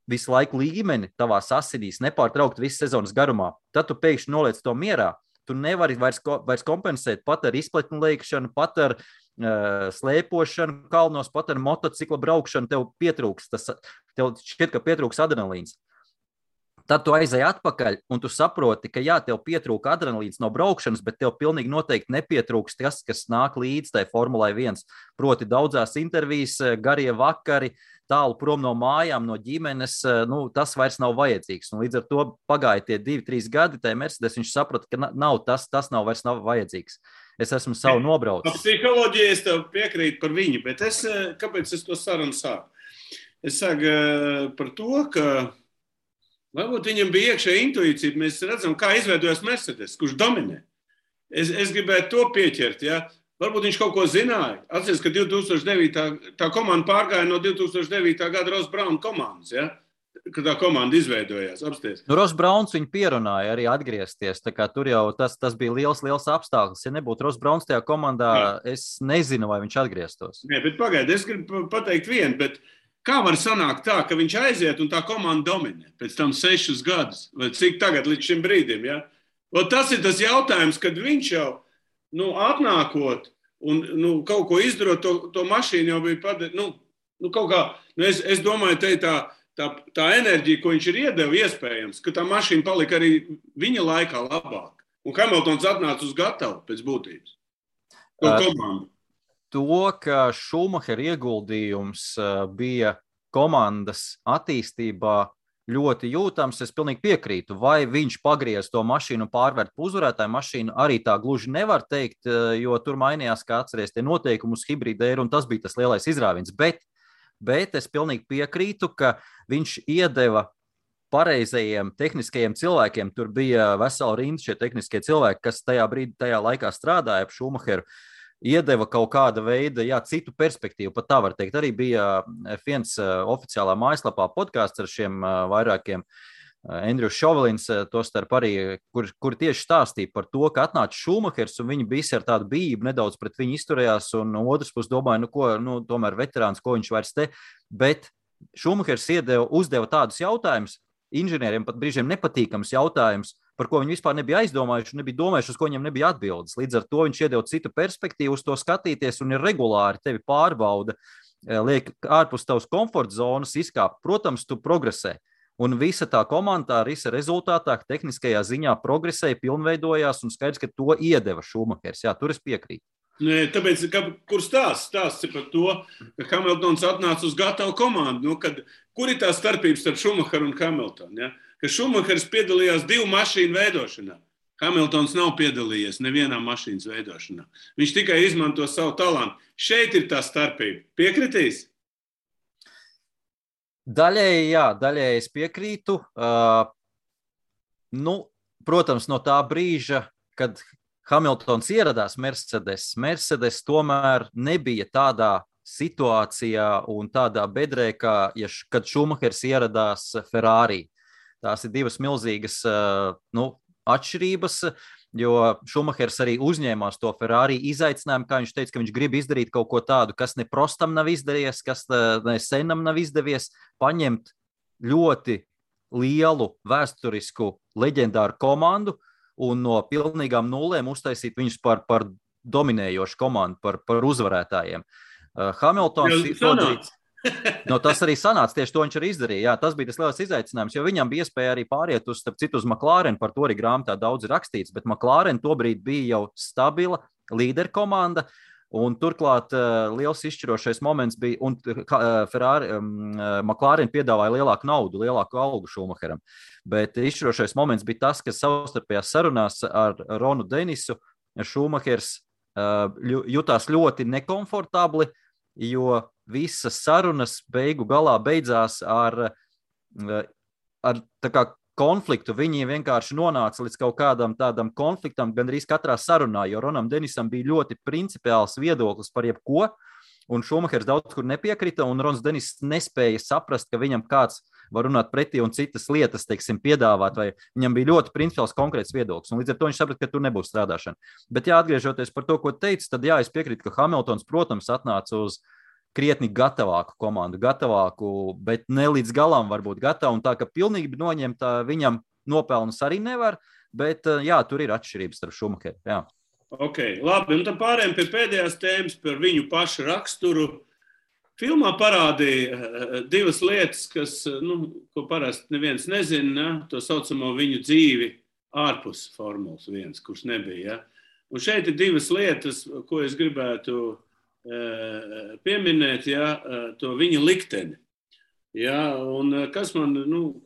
visu laiku līmeni tavās asinīs, nepārtraukt visu sezonas garumā, tad tu pēkšņi noliec to mierā. Tu nevari vairs kompensēt pat ar izpletnu leikšanu, pat ar slēpošanu kalnos, pat ar motocikla braukšanu, tev šķiet, ka pietrūks adrenalīns. Tad tu aizej atpakaļ un tu saproti, ka tev pietrūka adrenalīns no braukšanas, bet tev pilnīgi noteikti nepietrūks tas, kas nāk līdz tai Formulai 1. Proti daudzās intervijas, garie vakari, tālu prom no mājām, no ģimenes, tas vairs nav vajadzīgs. Un līdz ar to pagāja tie 2-3 gadi, tai Mercedes viņš saprata, ka tas vairs nav vajadzīgs. Es esmu savu nobraucis. Psiholoģija es tev piekrītu par viņu, bet kāpēc es to sarunu sāku? Es saku par to, ka varbūt viņam bija iekšēja intuīcija. Mēs redzam, kā izveidojas Mercedes, kurš dominē. Es gribētu to pieķert, Varbūt viņš kaut ko zināja. Atceries, ka 2009. tā komanda pārgāja no 2009. gada Ross Braun komandas, kad tā komanda izveidojās. Apsties. Ross Brauns viņu pierunāja arī atgriezties. Tā kā tur jau tas bija liels apstākļus. Ja nebūtu Ross Brauns tajā komandā, es nezinu, vai viņš atgrieztos. Nē, bet pagaidi, es gribu pateikt vienu, bet kā var sanākt tā, ka viņš aiziet un tā komanda dominē pēc tam 6 gadus? Vai cik tagad līdz šim brīdim, Tas ir tas jautājums, kad viņš jau atnākot un kaut ko izdarot, to mašīnu jau bija padarīt. Kaut kā, es domāju, tā enerģija, ko viņš ir iedeva, iespējams, ka tā mašīna palika arī viņa laikā labāk. Un Hamiltons atnāca uz gatavu pēc būtības. To komandu. To, ka Šumahera ieguldījums bija komandas attīstībā, ļoti jūtams. Es pilnīgi piekrītu. Vai viņš pagriez to mašīnu un pārvērt par uzvarētāju mašīnu, arī tā gluži nevar teikt, jo tur mainījās, kā atceries, tie noteikumi uz hibrīda un tas bija tas lielais izrāviens. Bet es pilnīgi piekrītu, ka viņš iedeva pareizajiem tehniskajiem cilvēkiem. Tur bija vesela rinda šie tehniskie cilvēki, kas tajā laikā strādāja ap Schumacheru. Iedeva kaut kāda veida, citu perspektīvu, pat tā var teikt. Arī bija viens oficiālā mājaslapā podkāsts ar šiem vairākiem Andrejs Šovelins, tostarp arī, kur tieši stāstīja par to, ka atnāca Schumachers un viņi visi ar tādu bijību nedaudz pret viņu izturējās, un otrs puses domāja, tomēr veterāns, ko viņš vairs te, bet Schumachers uzdeva tādus jautājumus, inženieriem pat brīžiem nepatīkams jautājums, par ko viņi vispār nebija aizdomājuši, nebija domājuši, uz ko viņiem nebija atbildes. Līdz ar to viņš iedeva citu perspektīvu uz to skatīties un ir regulāri tevi pārbauda, liek ārpus tavas komforta zonas izkāpt. Protams, tu progresē. Un visa tā komanda, visa rezultātā tehniskajā ziņā progresēja, pilnveidojās un skaidrs, ka to iedeva Schumachers. Jā, tur es piekrītu. Nē, tāpēc, kur stāsts par to, ka Hamiltons atnāca uz gatavu komandu? Kur ir tā starpība starp Schumacheru un Hamiltonu? Ja? Ka Schumachers piedalījās 2 mašīnu veidošanā. Hamiltons nav piedalījies nevienā mašīnas veidošanā. Viņš tikai izmanto savu talantu. Šeit ir tā starpība. Piekritīs? Daļēji es piekrītu. Protams, no tā brīža, kad Hamiltons ieradās Mercedes tomēr nebija tādā situācijā un tādā bedrē, kad Schumachers ieradās Ferrari. Tās ir 2 milzīgas atšķirības, jo Schumachers arī uzņēmās to Ferrari izaicinājumu, kā viņš teica, ka viņš grib izdarīt kaut ko tādu, kas ne prostam nav izdevies, kas ne senam nav izdevies, paņemt ļoti lielu vēsturisku leģendāru komandu un no pilnīgām nulēm uztaisīt viņus par dominējošu komandu, par uzvarētājiem. Hamiltons tas arī sanāca, tieši to viņš arī izdarīja. Jā, tas bija tas lielais izaicinājums, jo viņam bija iespēja arī pāriet uz McLaren, par to arī grāmatā daudz ir rakstīts, bet McLaren tobrīd bija jau stabila līderkomanda, un turklāt liels izšķirošais moments bija, un McLaren piedāvāja lielāku naudu, lielāku algu Schumacheram, bet izšķirošais moments bija tas, ka savstarpējās sarunās ar Ronu Denisu Schumachers jutās ļoti nekomfortabli, jo visas sarunas beigu galā beidzās ar konfliktu. Viņi vienkārši nonāca līdz kaut kādam tādam konfliktam gandrīz katrā sarunā, jo Ronam Denisam bija ļoti principiāls viedoklis par jebko, un Schumachers daudz kur nepiekrita, un Rons Denis nespēja saprast, ka viņam kāds var runāt pretī un citas lietas, teiksim, piedāvāt, vai viņam bija ļoti principiāls konkrēts viedoklis, un līdz ar to viņš saprata, ka tur nebūs strādāšana. Bet atgriežoties par to, ko teicu, tad es piekrītu, ka Hamiltons, protams, atnāca uz krietni gatavāku komandu, bet ne līdz galam varbūt gatavu, un tā, ka pilnīgi noņemt viņam nopelnus arī nevar, bet tur ir atšķirības starp Schumacheru. Jā. Ok, labi, un tad pārējām pie pēdējās tēmas par viņu pašu raksturu. Filmā parādīja 2 lietas, ko parasti neviens nezina, to saucamo viņu dzīvi ārpus Formulas 1, kurš nebija. Ja? Un šeit ir 2 lietas, ko es gribētu pieminēt, to viņa likteni. Ja? Un kas man,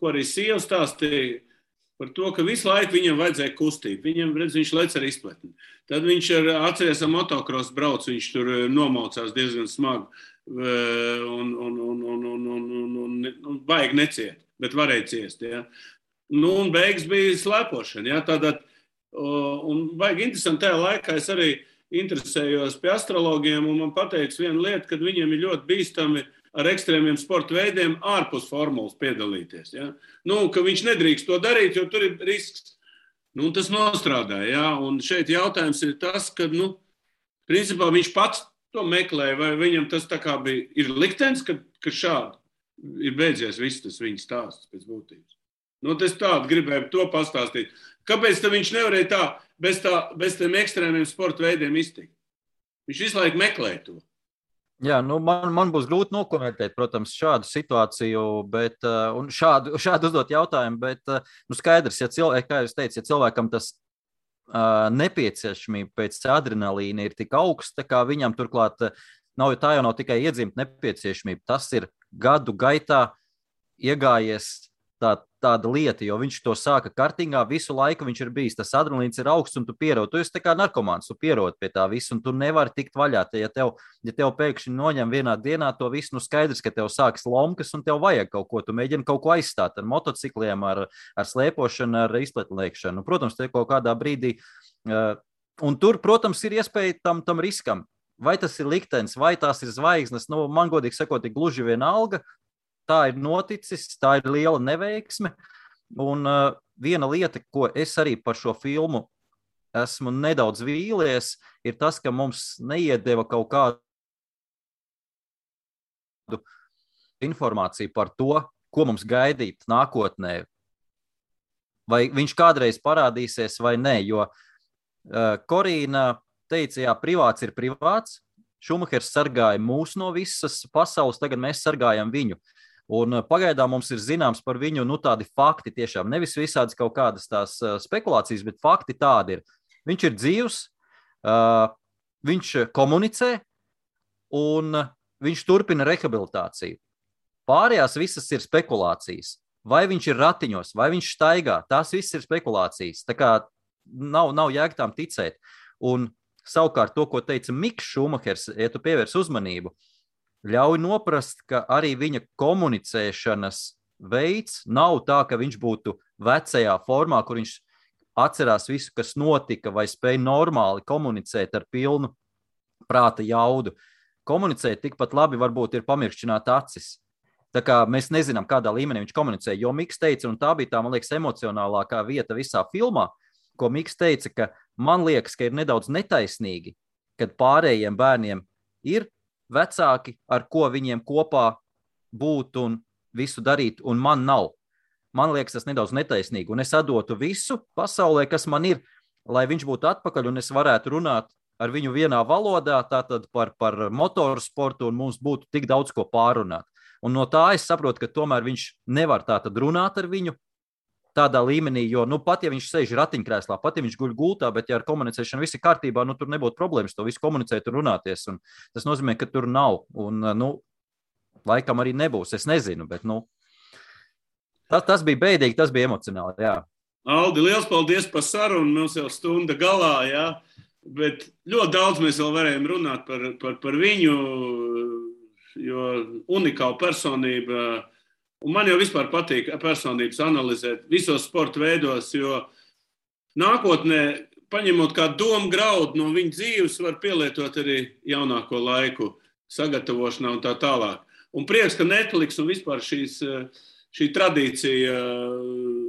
ko arī sieva stāstīja, par to, ka visu laiku viņam vajadzēja kustību. Viņš lec ar izpletni. Tad viņš atceries ar motocross brauc, viņš tur nomaucās diezgan smagi un baigi neciet, bet varēja ciest. Ja? Un beigas bija slēpošana. Ja? Tātad, un baigi interesanti tajā laikā es arī interesējos pie astrologiem, un man pateica viena lieta, kad viņiem ir ļoti bīstami ar ekstrēmiem sporta veidiem ārpus formulas piedalīties. Ja? Ka viņš nedrīkst to darīt, jo tur ir risks. Tas nostrādāja. Ja? Un šeit jautājums ir tas, ka principā viņš pats to meklē, vai viņam tas tā kā ir liktenis, ka šādi ir beidzies viss tas viņa stāsts pēc būtības. Es tādu gribēju to pastāstīt. Kāpēc viņš nevarēja tā bez tiem ekstrēmiem sporta veidiem iztikt? Viņš visu laiku meklē to. Jā, man būs grūti nokomentēt, protams, šādu situāciju, un šādu uzdot jautājumu, bet skaidrs, kā jūs teicat, ja cilvēkam tas nepieciešamība pēc adrenalīna ir tik augsta, kā viņam turklāt tā jau nav tikai iedzimta nepieciešamība, tas ir gadu gaitā iegājies tāda lieta, jo viņš to sāka kartingā, visu laiku viņš ir bijis, tas adrenalīns ir augsts un tu pierod. Tu esi tā kā narkomāns, tu pierod pie tā visu un tu nevari tikt vaļā. Ja tev pēkšņi noņem vienā dienā to visu, skaidrs, ka tev sāks lomkas un tev vajag kaut ko, tu mēģini kaut ko aizstāt ar motocikliem, ar slēpošanu, ar izpletliekšanu. Protams, te kaut kādā brīdī, un tur, protams, ir iespēja tam riskam. Vai tas ir liktenis, vai tās ir zvaigznes, man godīgi sakot, ir gluži vienalga. Tā ir noticis, tā ir liela neveiksme. Un viena lieta, ko es arī par šo filmu esmu nedaudz vīlies, ir tas, ka mums neiedeva kaut kādu informāciju par to, ko mums gaidīt nākotnē. Vai viņš kādreiz parādīsies vai nē, jo Korīna teica, jā, privāts ir privāts. Šumahers sargāja mūs no visas pasaules, tagad mēs sargājam viņu. Un pagaidām mums ir zināms par viņu tādi fakti tiešām. Nevis visādas kaut kādas tās spekulācijas, bet fakti tādi ir. Viņš ir dzīvs, viņš komunicē un viņš turpina rehabilitāciju. Pārējās visas ir spekulācijas. Vai viņš ir ratiņos, vai viņš staigā, tās visas ir spekulācijas. Tā kā nav jēga tām ticēt. Un savukārt to, ko teica Miks Šumahers, ja tu pievērs uzmanību, ļauj noprast, ka arī viņa komunicēšanas veids nav tā, ka viņš būtu vecajā formā, kur viņš atcerās visu, kas notika, vai spēj normāli komunicēt ar pilnu prāta jaudu. Komunicēt tikpat labi varbūt ir pamirkšķināt acis. Tā kā mēs nezinām, kādā līmenī viņš komunicē, jo Miks teica, un tā bija tā, man liekas, emocionālākā vieta visā filmā, ko Miks teica, ka man liekas, ka ir nedaudz netaisnīgi, kad pārējiem bērniem ir vecāki, ar ko viņiem kopā būt un visu darīt, un man nav. Man liekas, tas nedaudz netaisnīgi, un es atdotu visu pasaulē, kas man ir, lai viņš būtu atpakaļ, un es varētu runāt ar viņu vienā valodā, tātad par motorsportu, un mums būtu tik daudz ko pārunāt. Un no tā es saprotu, ka tomēr viņš nevar tātad runāt ar viņu tādā līmenī, jo pat ja viņš sēž ratiņkrēslā, pat ja viņš guļ gultā, bet ja ar komunicēšanu viss ir kārtībā, tur nebūtu problēmas to visu komunicēt un runāties. Un tas nozīmē, ka tur nav. Un, laikam arī nebūs. Es nezinu, bet, tas bija bēdīgi, tas bija emocionāli, jā. Aldi, liels paldies par sarunu. Mums jau stunda galā, jā. Bet ļoti daudz mēs vēl varējām runāt par viņu, jo unikāla personība. Un man jau vispār patīk personības analizēt visos sporta veidos, jo nākotnē, paņemot kā domu graudu no viņa dzīves, var pielietot arī jaunāko laiku sagatavošanā un tā tālāk. Un prieks, ka Netflix un vispār šī tradīcija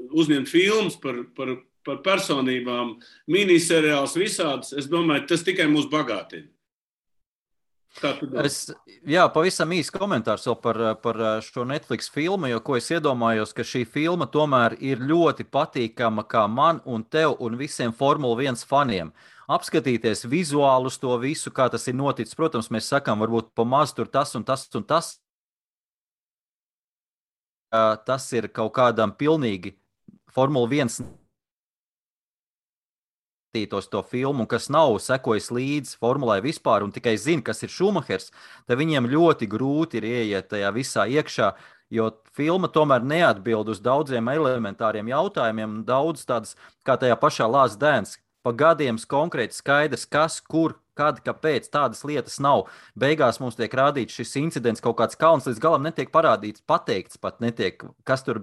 uzņemt filmas par personībām, miniseriāls visādas, es domāju, tas tikai mūs bagātina. Pavisam īsts komentārs vēl par šo Netflix filmu, jo ko es iedomājos, ka šī filma tomēr ir ļoti patīkama kā man un tev un visiem Formula 1 faniem. Apskatīties vizuālus to visu, kā tas ir noticis. Protams, mēs sakām, varbūt pamaz tur tas un tas un tas. Tas ir kaut kādam pilnīgi Formula 1 to filmu, kas nav sekojis līdz formulai vispār un tikai zina, kas ir Šumahers, tad viņiem ļoti grūti ir ieiet tajā visā iekšā, jo filma tomēr neatbild uz daudziem elementāriem jautājumiem, daudz tādas, kā tajā pašā Last Dance, pa gadiem konkrēti skaidrs, kas, kur, kad, kāpēc tādas lietas nav. Beigās mums tiek rādīts šis incidents, kaut kāds kalns līdz galam netiek parādīts, pateikts pat netiek, kas tur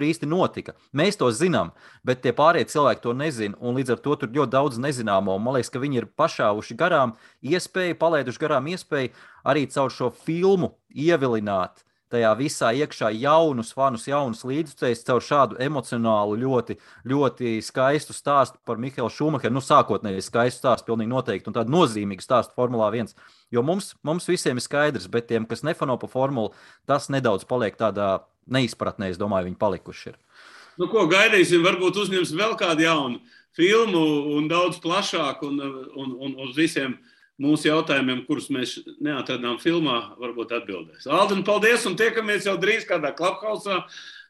īsti notika. Mēs to zinām, bet tie pārējie cilvēki to nezina, un līdz ar to tur ļoti daudz nezināmo. Man liekas, ka viņi ir pašāvuši garām iespēju, palaiduši garām iespēju arī caur šo filmu ievilināt tajā visā iekšā jaunus fanus, jaunus līdzcējus caur šādu emocionālu, ļoti, ļoti skaistu stāstu par Mihaelu Šumacheru. Sākotnēji skaistu stāstu, pilnīgi noteikti, un tādu nozīmīgu stāstu Formulā 1. Jo mums visiem ir skaidrs, bet tiem, kas nefano pa formulu, tas nedaudz paliek tādā neizpratnē, es domāju, viņi palikuši ir. Ko gaidīsim? Varbūt uzņems vēl kādu jaunu filmu un daudz plašāku un uz visiem mūsu jautājumiem, kurus mēs neatradām filmā, varbūt atbildēs. Alden, paldies, un tiekamies jau drīz kādā Clubhouse.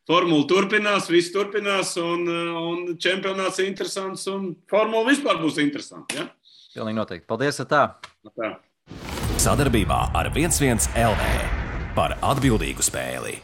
Formula turpinās, viss turpinās, un čempionāts ir interesants, un formula vispār būs interesanta. Ja? Pilnīgi noteikti. Paldies, tā. Sadarbībā ar 11 LV par atbildīgu spēli.